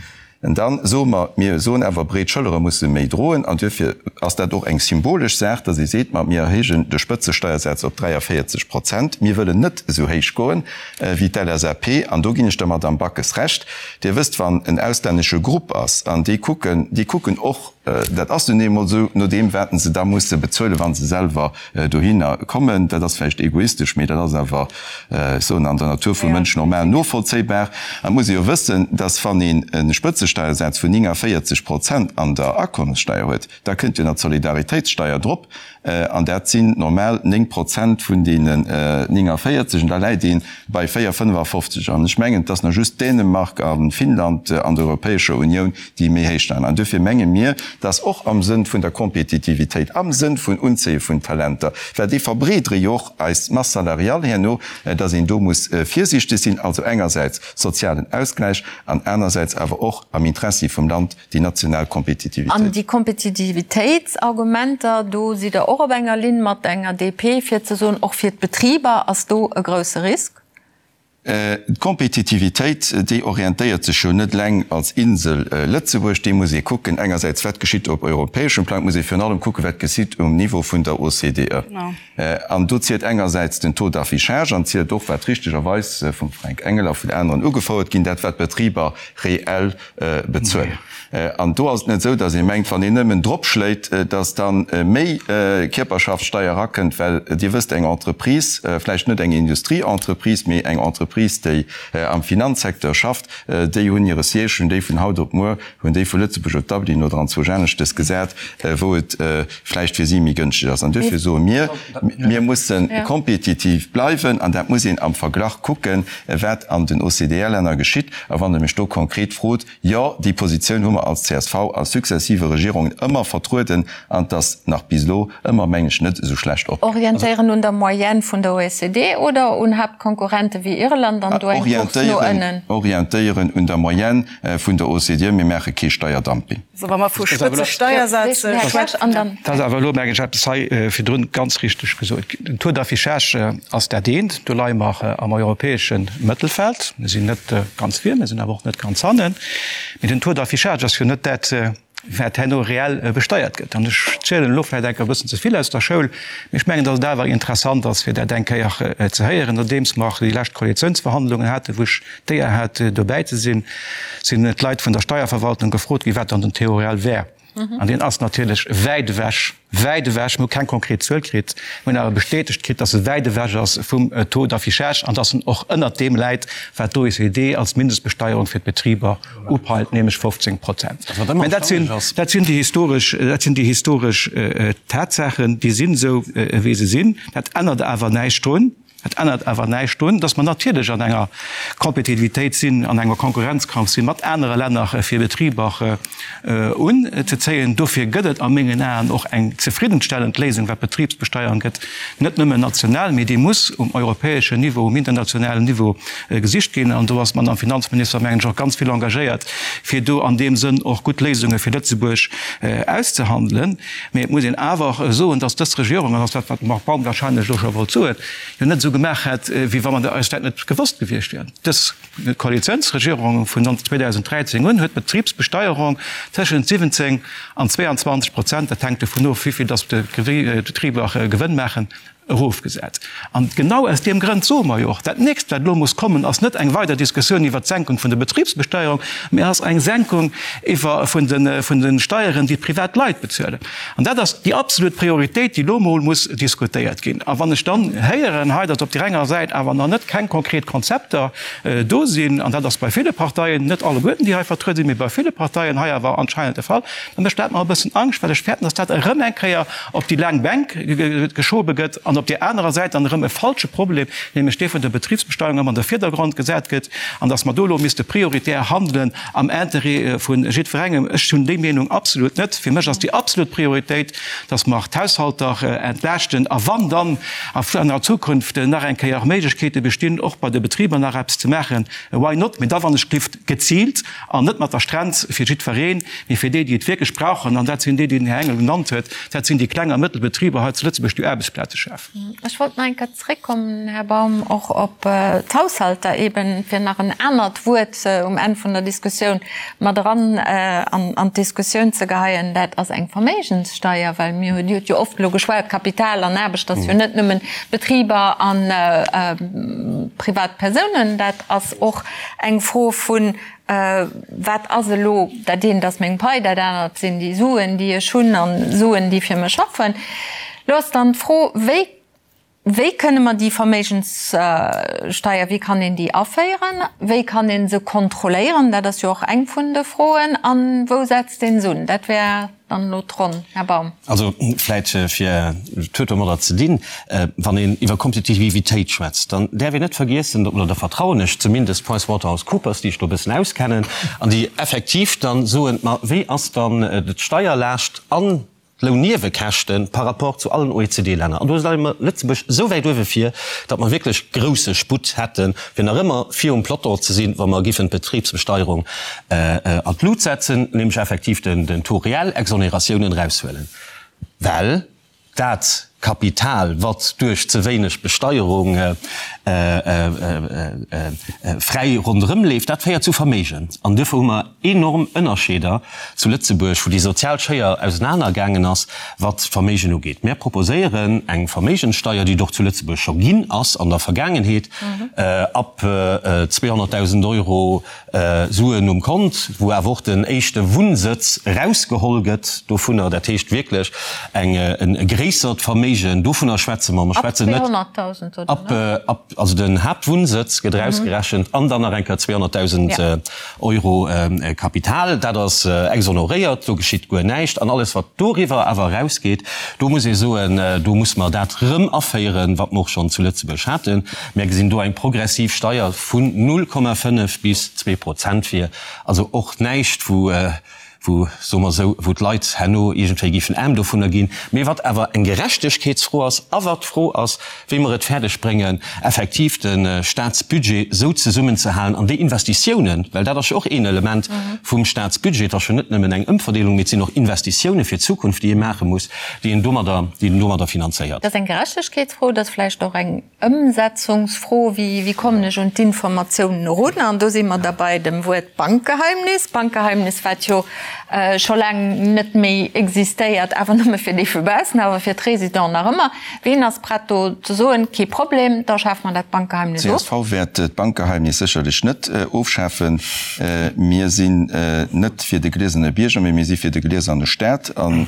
An da soe mer, mir soen awer, breet Schëllere musse méi droen. An duerfir ass dat och eng symbolesch Saach, dass ee seet, ma mir erhéijen de Spëtzesteiersaz op 43 Prozent. Mir wëllen net esou héich goen wéi d'LSAP. An do ginn ech der Madamm Backes Recht. Dir wësst, wann en auslännesche Grupp ass an déi kucken, déi kucken och, dat ass nun eemol esou, no deem wat se da musse bezuelen, wa se selwer dohinner kommen. Dat ass vläicht egoistesch, mee dat ass awer, ech soen, an der Natur vum Mënsch normal novollzéibar. An et muss ee jo wëssen, dass wann een e Spëtzesteiersaz vun 49 Prozent an der Akommessteier huet, da kënnt jo nach d'Solidaritéitssteier drop, an dat sinn normal 9 Prozent vun deenen 49, an da läit ee bei 4,55. An ech mengen, et ass nach just Dänemark a Finnland an der Europäescher Unioun, déi méi héich leien. An duerfir menge mir, dass och am Sënn vun der Kompetitivitéit, am Sënn vun Unzéie vun Talenter, well déi verbreedere jo och eis Masse salariale herno, dass een do muss virsiichteg sinn, also engersäits sozialen Ausgläich an anersäits awer och am Interessi vum Land déi national Kompetitivitéit. An déi Kompetitivitéitsargumenter, do sidd Der och op enger Linn mat enger DP, fir ze soen, och fir d'Betriber ass do e grouse Risk? D'Kompetitivitéit, déi orientéiert sech jo net eleng als Insel Lëtzebuerg. Déi muss ee kucken, engersäits wat geschitt op europäeschem Plang, et muss ee virun allem kucken, wat geschitt um Niveau vun der OCDE. An do zielt engersäits den Taux d'affichage an zielt och, wat richtegerweis vum Fränk Engel a vun aneren ugefouert ginn, dat wat d'Betriber reell bezuelen. An do ass et net esou, datt ee mengt, wann een nëmmen dropschléit, datt da méi Kierperschaftssteier erakënnt, well Dir wësst, eng Entreprise, vläicht net eng Industrieentreprise, mee eng Entreprise, déi am Finanzsecteur schafft, déi hunn hire Siège, hunn déi vun haut op muer, hunn déi vu Lëtzebuerg op Dublin oder anzwousch aneschtes gesat, wou et vläicht fir si méi gënschteg ass. An duerfir soe mir, mir musse kompetitiv bleiwen an dat muss een am Verglach kucken, wat an den OCDE-Länner geschitt. A wann Der mech do konkret frot, Jo, déi Positioun hu mer als csv a successive Regierungen ëmmer vertrueden an 't ass nach bis elo ëmmer, mengen ech, net esou schlecht opgaangen. Orientéieren un der Moyenne vun der OECD oder un Haaptkonkurrente wéi Irland an do eng Course no ënnen? Orientéieren un der Moyenne vun der OCDE. Mir maache kee Steierdumping. Wa mer vu Spëtzesteiersätze schwätzen. Et ass awer elo, mengen ech, eppes hei virdrun ganz richteg gesot ginn. Den Taux d'affichage ass dat eent. Do leie mer am europäesche Mëttelfeld. Mir sinn net ganz vir, mir sinn awer och net ganz hannen. Mee den Taux d'affichage ass jo net dat, wat herno reell besteiert gëtt. An ech zielen elo vläicht eng Kéier e bëssen ze vill aus der Schoul, mee ech mengen, datt et awer interessant ass, fir dat eng Kéier ze héieren, nodeems mer déi lescht Koalitiounsverhandlungen haten, wou ech d'Éier hat, dobäi ze sinn, sinn d'Leit vun der Steierverwaltung gefrot ginn, wat dann den Taux réel wär. An deen ass natierlech wäit ewech, wäit ewech, mir hu keng konkret Zuel kritt, mir hunn awer bestätegt kritt, dass e wäit ewech ass vum Taux d'affichage an dass en och ënnert deem läit, wat d'OECD als Mindestbesteierung fir d'Betriber upeilt, nämlech 15 Prozent. Mä dat sinn, dat sinn déi historesch, dat sinn déi historesch Tatsaachen, déi sinn esou, wéi se sinn. Dat ännert awer näischt drun, Dat ännert awer näischt drun, dass mer natierlech an enger Kompetitivitéit sinn, an enger Konkurrenzkampf si mat anere Länner, fir Betriber unzezéien. Dofir gëtt et a mengen Aen och eng zefriddenstellend Léisung, wat d'Betribsbesteuerung gëtt, net nëmmen national, mee déi muss um europäeschen Niveau, um internationalen Niveau gesicht ginn. An do ass d'Madame Finanzminister, mengen ech, och ganz vill engagéiert, fir do an deem Sënn och gutt Léisunge fir Lëtzebuerg auszehandelen. Mee et muss een awer och soen, dass dës Regierung, an dat ass dat, wat de Marc Baum wahrscheinlech elo scho wollt soen, jo net esou gemaach hätt, wéi wa mer eis dat net gewosst gewiescht wieren. Dës Koalitiounsregierung vun 2013 un huet d'Betribsbesteierung tëschent 17 an 22 Prozent, dat hänkt dovun of, wéi vill dass d'Betriber Gewënn maachen, erofgesat. An genau aus deem Grënd soe mer jo och, dat Nächst, wat elo muss kommen, ass net eng weider Diskussioun iwwert d'Senkung vun der Betribsbesteuerung, mä ass eng Senkung iwwer vun de vun de Steieren, déi d'privat Leit bezuelen. An dat ass déi absolut Prioritéit, déi elo emol muss diskutéiert ginn. A wann ech dann héieren hei, datt op där enger Säit awer nach net keng konkret Konzepter do sinn, an dat ass bei ville Parteien, net alleguerten, déi hei vertruede sinn, mä bei ville Parteien hei awer anscheinend de Fall, da mécht dat mer e bëssen Angscht, well ech fäerten, datt dat erëm eng Kéier op déi laang Bänk geschobe gëtt an op där anerer Säit dann erëm e falsche Problem, nämlech dee vun der Betribsbesteuerung, ëmmer an de Virdergrond gesat gëtt an datt mer do elo misste prioritär handelen am Interêt vu jiddwerengem. Ech hunn déi Meenung absolut net. Fir mech ass déi absolut Prioritéit, datt mer d'Haushalter entlaaschten a wann dann an der Zukunft nach eng Kéier Méiglechkeete bestinn, och bei de Betriber nach eppes ze maachen, why not? Mee da wann ech gelift geziilt An net mat der Strenz fir jiddwereen, mee fir déi, déi et wierklech brauchen. An dat sinn déi, déi den Här Engel genannt huet, dat sinn déi kleng a mëttel Betriber hei zu Lëtzebuerg, déi Aarbechtsplaze schafen. Ech wollt nach eng Kéier zréckkommen, Här Baum, och op d'Haushalter eben, fir nach en anert Wuert um Enn vun der Diskussioun mat eran an d'Diskussioun ze geheien. Dat ass eng Verméigenssteier, well mir hunn, Dir hutt jo oft elo geschwat, Kapital an Aarbecht ass jo net nëmmen Betriber a privat Persounen, dat ass och Eng Fro vun, Wat ass elo, dat eent ass meng Pai, dat anert sinn déi Suen, déi ech hunn an Suen, déi fir mech schaffen. Elo ass dann d'Fro, Wéi, wéi kënne mer déi Verméigenssteier, wéi kann een déi aféieren? Wéi kann ee se kontrolléieren? Dat ass jo och eng vun de Froen. A wou setzt ee se un? Dat wär Dann elo d'Ronn, Här Baum. Also vläit fir, et huet domadder ze dinn, wann een iwwer Kompetitivitéit schwätzt, dann däerf een net vergiessen, oder da vertrauen ech zumindest PricewaterhouseCoopers, déi ech do e bëssen auskennen an déi effektiv dann soen, ma wéi ass dann d'Steierlaascht an d'Lounniewekäschte par rapport zu allen OECD-Länner? An do leie mer Lëtzebuerg esou wäit uewe vir, datt mer wierklech grousse Sputt hätten, fir nach ëmmer virum Peloton ze sinn, wa mer giffen d'Betribsbesteierung an d'Lut setzen, nämlech effektiv den Taux réel, Exoneratiounen eraushuelen, well dat. Kapital, wat duerch ze wéineg Besteierung fräi ronderëm leeft, dat féiert zu Verméigen. An duerfir hu mer enorm Ënnerscheeder zu Lëtzebuerg, wou déi sozial Schéier ausenaner gaangen ass, wat d'Verméigen ugeet. Mär proposéieren eng Verméigenssteier, déi et och zu Lëtzebuerg scho ginn ass an der Vergaangenheet, ab 200.000 Euro Suen um Kont, wou awer och den éischte Wunnsëtz erausgeholl gëtt dovunner, dat heescht wierklech eng e gréissert Verméigen, dovunner schwätze mer. Mer schwätzen net ab, ab, also den Haaptwunnsëtz gëtt erausgerechent an dann nach eng Kéier 200.000 Euro Kapital. Dat ass exonoréiert, do geschitt guer näischt. An alles wat doriwwer awer erausgeet, do muss ee soen, do muss mer dat erëm aféieren, wat mer och schonn zu Lëtzebuerg haten. Mär gesinn do eng progressiv Steier vun 0,5 bis 2 Prozent vir. Also och näischt, wou, wou, soe mer esou, wou d'Leit herno iergendwéi géifen aarm dovunner ginn, mee wat awer eng Gerechtegkeetsfro ass a wat d'Fro ass, wéi mer et fäerdeg bréngen, effektiv de Statsbudget esou zesummenzehalen an déi Investitiounen, well dat ass jo och een Element vum Statsbudget, et ass jo net nëmmen eng Ëmverdeelung, mee et sinn och Investitiounen fir d'Zukunft, déi ee maache muss, déi een domadder, déi een domadder finanzéiert. Dat ass eng Gerechtegkeetsfro, dat ass vläicht och eng Ëmsetzungsfro, Wéi kommen ech un d'Informatiounen erun? An do si mer da bei dem Wuert Bankgeheimnis. Bankgeheimnis, wat jo scho laang net méi existéiert, awer nëmme fir déi vu baussen, awer fir d'Résidenten nach ëmmer. Ween ass prett do ze soen, kee Problem, da schafe mer dat Bankgeheimnis of? Csv wäert d'Bankgeheimnis sécherlech net ofschafen. Mir sinn net fir de gliesene Bierger, mee mir si fir de glieserne Staat. An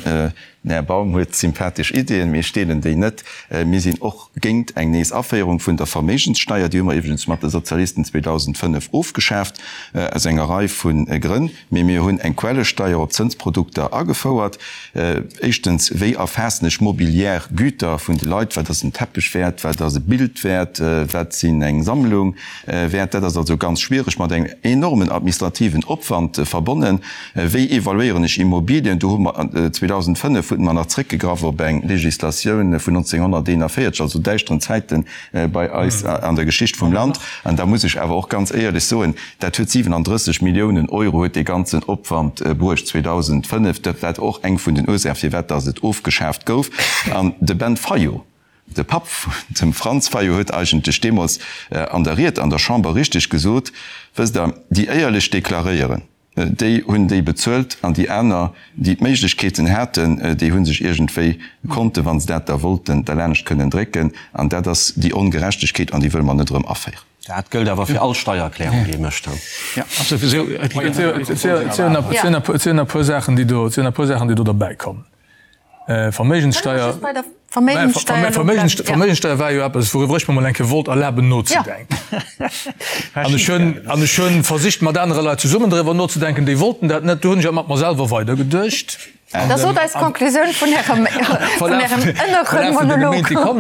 den Här Baum huet sympathesch Ideeën, mee ech deelen déi net. Mir sinn och géint eng nees Aféierung vun der Verméigenssteier. Déi hu mer iwwregens mat de Sozialisten 2005 ofgeschaaft, aus enger Rei vu Grënn. Mee mir hunn eng Quellesteier op Zënsprodukter agefouert. Éischtens, wéi erfaassen ech mobiliär Güter vun de Leit? Wat ass en Teppech wäert? Wat ass e Bild wäert? Wat sinn eng Sammlung wäert? Dat ass also ganz schwiereg, mat engem enormen administrativen Opwand verbonnen. Wéi evaluéieren ech Immobilien? Do hu mer 2005 hunn mer nach zréckgegraff op eng Législatioun vun 1941, also däischteren Zäite bei eis an der Geschicht vum Land. An da muss ech awer och ganz éierlech soen, dat huet 37 Milliounen Euro huet dee ganzen Opwand bruecht 2005. Dat war och eng vun den Ursaache firwat datt et ofgeschaaft gouf. An de Ben Fayot, De Papp vun dem Franz Fayot huet eigentlech deemools an der Ried an der Chamber richteg gesot, Wësst Der, déi éierlech deklaréieren, Déi hunn déi bezuelt an déi aner, déi d'Méiglechkeeten haten, déi hu sech iergendwéi konnten, wa se dat da wollten, derlaanscht kënnen drécken. An dat ass déi Ongerechtegkeet an déi wëlle mer net erëm aféieren. Dat gëllt awer fir all Steiererklärung, déi ee mécht. Et sinn e puer Saachen, déi do derbäikommen. Verméigenssteier Verméigenssteier war jo eppes, wouriwwer ech mer mol eng Kéier wollt erlaben nozedenken. An ech hunn, an ech hunn versicht mat anere Leit zesummen driwwer nozedenken, déi wollten dat net. Du hunn ech awer mat mer selwer weidergeduecht. Da sot eis d'Konklusioun vun Ärem, vun Ärem ënnere Monolog.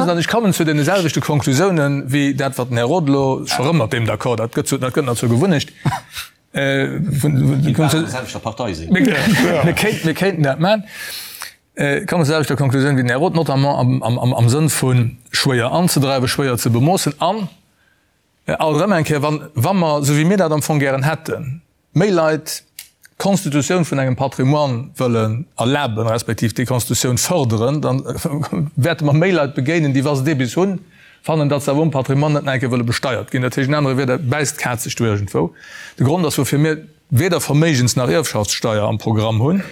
An ech kommen zu deene selwechte Konklusiounen wéi dat, wat den Här Roth elo scho rëm mat deem d'accord, dat gëtt zu, dat gëtt nach zur Gewunnecht. Mir kéinten dat maachen. Ech kommen zur selwechter Konklusioun wéi den Här Roth, notamment am Sënn vu schwéier anzedreiwen, schwéier ze bemoossen an alt erëm eng Kéier, wa mer, esou wéi mir dat am Fong gären hätten, méi Leit d'Konstitutioun vun engem Patrimoine wëllen erlaben, respektiv déi Konstitutioun fërderen, da wäerte mer méi Leit begéinen, déi, wa se dee bis hunn, fannen, datt se awer um Patrimoine net nach eng Kéier wëlle besteiert ginn. Dat heescht, in anere Wierder, bäisst d'Kaz sech do iergendwou. De Grond ass, woufir mir weder Verméigens nach Ierfschaftssteier am Programm hunn.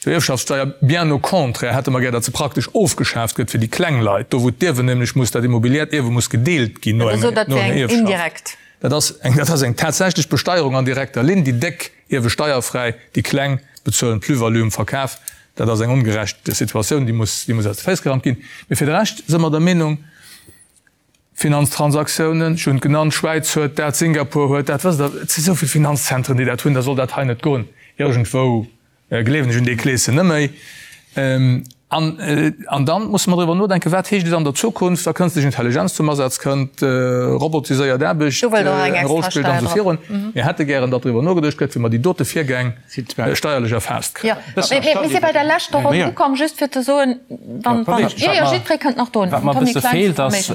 Zur Ierfschaftssteier, bien au contraire, hätte mer gär, datt se praktesch ofgeschaaft gëtt fir déi kleng Leit, do wou d'Ierwen nämlech muss, dat immobiliäert Ierwe muss gedeelt ginn no enger Ierfschaft. Dat ass eng, dat ass eng tatsächlech Besteierung an direkter Linn. Déi Déck ierwe steierfräi, déi Kleng bezuelen d'Plus-value um Verkaf. Dat ass eng ongerecht Situatioun, déi muss, déi muss aus de Féiss gerammt ginn. Mee fir de Rescht si mer der Meenung, Finanztransaktiounen, ech hunn et genannt, d'Schwäiz huet dat, Singapur huet dat, wësst Der, et si sou vill Finanzzentren, déi dat hunn, da soll dat hei net goen. Iergendwou Gleewen ech un dee Kleeschen net méi. An, an dann musse mer driwwer nodenken, wat heescht et an der Zukunft, wa kënstlech Intelligenz zum Asaz kënnt, robotiséiert Aarbecht eng Roll spillt an esou virun. Mir hätte gären, datt driwwer nogeduecht gëtt, wéi mer déi dote Virgäng steierlech erfaasst kréien. Jo, mir si bei der leschter Ronn ukomm, just fir ze soen, wann, wann, jo, jo, jiddweree kënnt nach drun. Wat mer e bësse feelt, ass,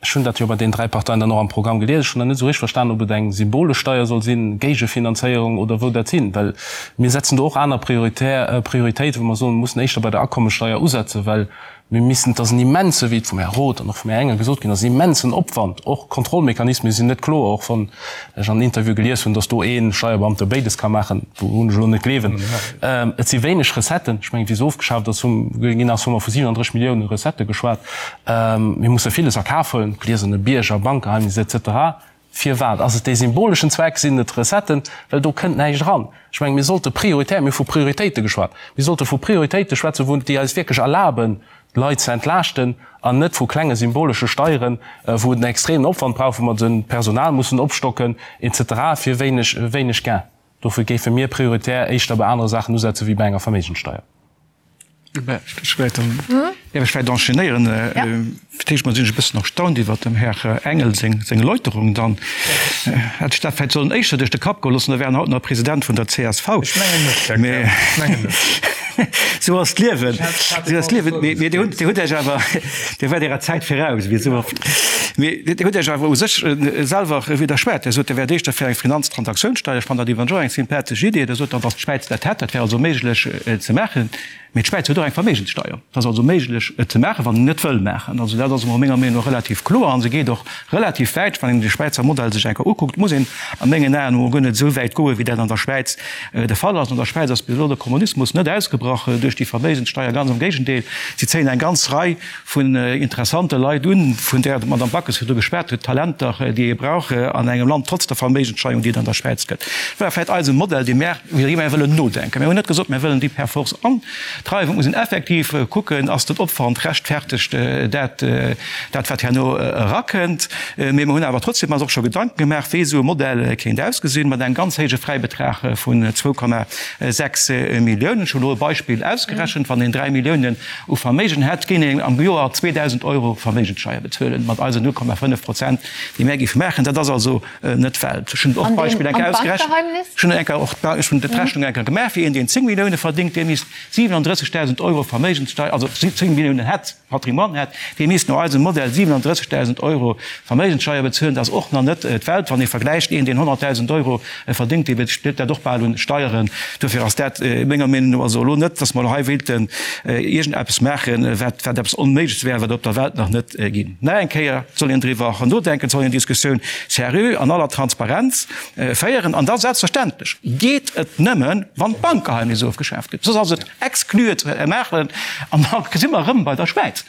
Ech hunn dat jo bei deenen 3 Parteien dann och am Programm gelies. Ech hunn nach net esou richteg verstanen, ob et eng symbolesch Steier soll sinn, Géigefinanzéierung oder wou dat sinn. Well mir setzen do och aner Prioritär, Prioritéiten, wou mer soen, mir mussen éischter bei der Akommessteier usetzen, well. Mir missten, et ass en immense, wéi et vum Här Roth an och vum Här Engel gesot ginn ass, en immensen Opwand. Och Kontrollmechanisme sinn net kloer, och wann ech an Interviewe gelies hunn, datt do ee Steierbeamte béides ka maachen, wourun ech elo net gleewen. Et si wéineg Recetten. Ech mengen, wéi se ofgeschaaft ass, hu ginn ass, hu mer vu 37 Millioune Recettë geschwat. Mir musse villes a Kaf huelen, gläserne Bierger, Bankgeheimnis et cetera. Firwat? Ass et dee symboleschen Zweck? Sinn et d'Recetten? Well do kënnt näischt eran. Ech mengen, mir sollte prioritär, mir hu vu Prioritéite geschwat, mir sollte vu Prioritéite schwätzen, wou, déi eis wierklech erlaben, d'Leit ze entlaaschten, an net vu klenge symbolesche Steieren, wou et en extremen Opwand brauch, wou mer de Personal mussen opstocken et cetera fir wéineg, wéineg Gain. Dofir géife mir prioritär éischter bei anere Saachen usetze wéi bei enger Verméigenssteier. Ech däerf ech vläicht enchaînéieren? Fir d'éischt mol sinn ech e bëssen erstaunt iwwert dem Här Engel seng Erläuterung. Dann hätt ech dat vläicht sollen éischter duerch de Kapp goe loossen, da wär en haut nach President vun der csv. Ech mengen net, Här Kern, ech mengen net. Sou ass d'Liewen, sou ass d'Liewen. Mee Dir hutt, Dir hutt Iech awer, Dir waart Ärer Zäit viraus, wéi esou oft. Mee Dir hutt Iech awer u sech selwer widderschwat. Dir sot, Dir wäert éischter fir eng Finanztransaktiounssteier. Ech fannen dat iwwerens och eng sympathesch Idee. Dir sot dann, datt d'Schwäiz dat hätt, dat wär also méiglech ze maachen. Mee d'Schwäiz huet och eng Verméigenssteier. Et ass also méiglech, et ze maachen, wann een et wëll maachen. Also dat ass emol menger Meenung no relativ kloer a se geet och relativ wäit. Wann een de Schwäizer Modell sech eng Kéier ukuckt, muss een a mengen Aen emol guer net esou wäit goen, wéi dat an der Schwäiz de Fall ass. An der Schwäiz ass bis elo de Kommunismus net ausgebrach duerch déi Verméigenssteier, ganz am Géigendeel, si zéien eng ganz Rei vun interessante Leit un, vun där d'Madame Backes virdru geschwat huet, Talenter, déi ee brauch an engem Land, trotz der Verméigenssteuerung, déi et an der Schwäiz gëtt. War vläicht eise Modell, dee mär, iwwer dee mär wëllen nodenken. Mir hunn net gesot, mär wëllen déi per force antreiwen. Et muss een effektiv kucken, ass den Opwand rechtfertegt dat, dat wat herno erakënnt. Mee mer hunn awer trotzdem eis och scho Gedanken gemaach, wéi esou e Modell kéint ausgesinn, mat engem ganz héije Fräibetrag vun 2,6 Milliounen. Ech hunn elo e Beispill ausgerechent, Wann een 3 Milliounen u Verméigen hätt, géing een am Joer 2.000 Euro Verméigenssteier bezuelen, mat eisen 0,5 Prozent, déi mär géife maachen. Dat ass also net d'Welt. Ech hunn och d'Beispill eng Kéier ausgerechent. Ech hunn eng Kéier och ech hunn d'Rechnung eng Kéier gemaach, fir een, deen 10 Millioune verdéngt, dee misst 37.000 Euro Verméigenssteier, also 10 Milliounen hätt, Patrimoine hätt, dee misst no eisem Modell 37.000 Euro Verméigenssteier bezuelen. Dat ass och nach net d'Welt, wann ee vergläicht, een, deen 100.000 Euro verdéngt, dee bezilt dat och bal un Steieren. Dofir ass dat menger Meenung no also elo net, dass mer elo hei wéilten iergendeppes maachen, wat wat eppes Onméigleches wär, wat et op der Welt nach net ginn. Nach eng Kéier, et soll een driwwer nodenken, et soll een Diskussioun seriö an aller Transparenz féieren. An da selbstverständlech geet et nëmmen, wann d'Bankgeheimnis ofgeschaaft gëtt. Soss ass et exclu et ze maachen. An da si mer erëm bei der Schwäiz.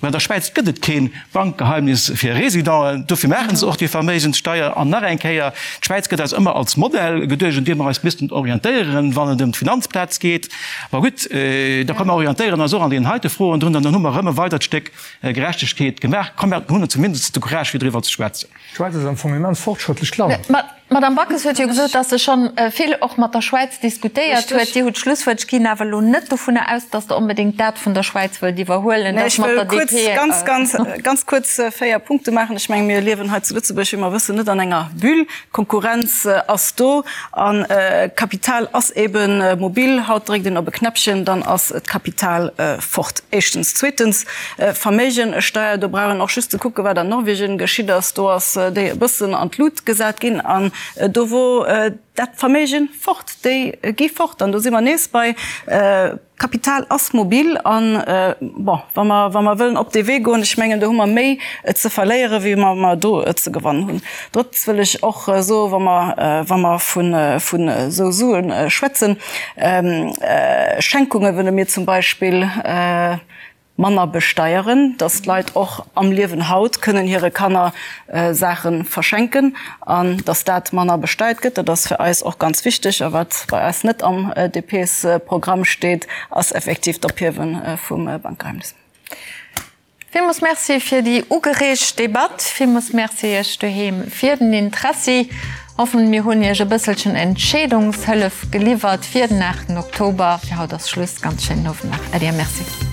Mä an der Schwäiz gëtt et kee Bankgeheimnis fir Residenten. Dofir maache se och déi Verméigenssteier. An nach eng Kéier, D'Schwäiz gëtt eis ëmmer als Modell geduecht, un deem mer eis missten orientéieren, wann et ëm d'Finanzplaz geet. Ma gutt, da komm mer orientéieren eis och an deenen heite Froen drun an dann hu mer erëm e weidert Stéck Gerechtegkeet gemaach. Komm, mer hunn zumindest de Courage, fir driwwer ze schwätzen. D'Schwäiz ass am Fong en immens fortschrëttlecht Land. D'Madame Backes huet jo gesot, datt se scho vill och mat der Schwäiz diskutéiert huet. Dir hutt d'Schlusswuert. Ech ginn awer elo net dovunner aus, datt Der onbedéngt dat vun der Schwäiz wëllt iwwerhuelen, dat mat der DP. Ech wëll kuerz, ganz, ganz kuerz 4 Punkte maachen. Ech mengen, mir liewen hei zu Lëtzebuerg, wéi mer wëssen, net an enger Bulle. D'Konkurrenz ass do a Kapital ass ebe mobil. Haut dréckt een op e Knäppchen, dann ass d'Kapital fort. Éischtens. Zweetens, Verméigensteier, do brauch een och just ze kucken, wat an Norwegen geschitt ass. Do ass déi e bëssen an d'Lut gesat ginn an do wor dat Verméigen fort. Déi gi fort an do si mer nees bei Kapital ass mobil an, bon, wa mer, wa mer wëllen op dee Wee goen, ech mengen, do hu mer méi ze verléieren, wéi mer mer do ze gewannen hunn. Drëttens wëll ech och soen, wa mer, wa mer vun, vun esou Sue schwätzen, Schenkunge wëlle mir zum Beispill, manner besteieren, dass d'Leit och am Liewen haut kënnen hire Kanner Saache verschenken an dass dat manner besteiert gëtt. Dat ass fir eis och ganz wichteg. A wat bei eis net am DPs-Programm steet, ass effektiv d'Ophiewe vum Bankgeheimnis. Villmools Merci fir déi ugereegt Debatt. Villmools Merci Iech doheem fir den Interessi. Hoffen mir hunn Iech e bësselchen Entscheedungshëllef geliwwert fir den 8 Oktober. Fir haut ass Schluss. Ganz schéinen Owend nach. Äddi a Merci.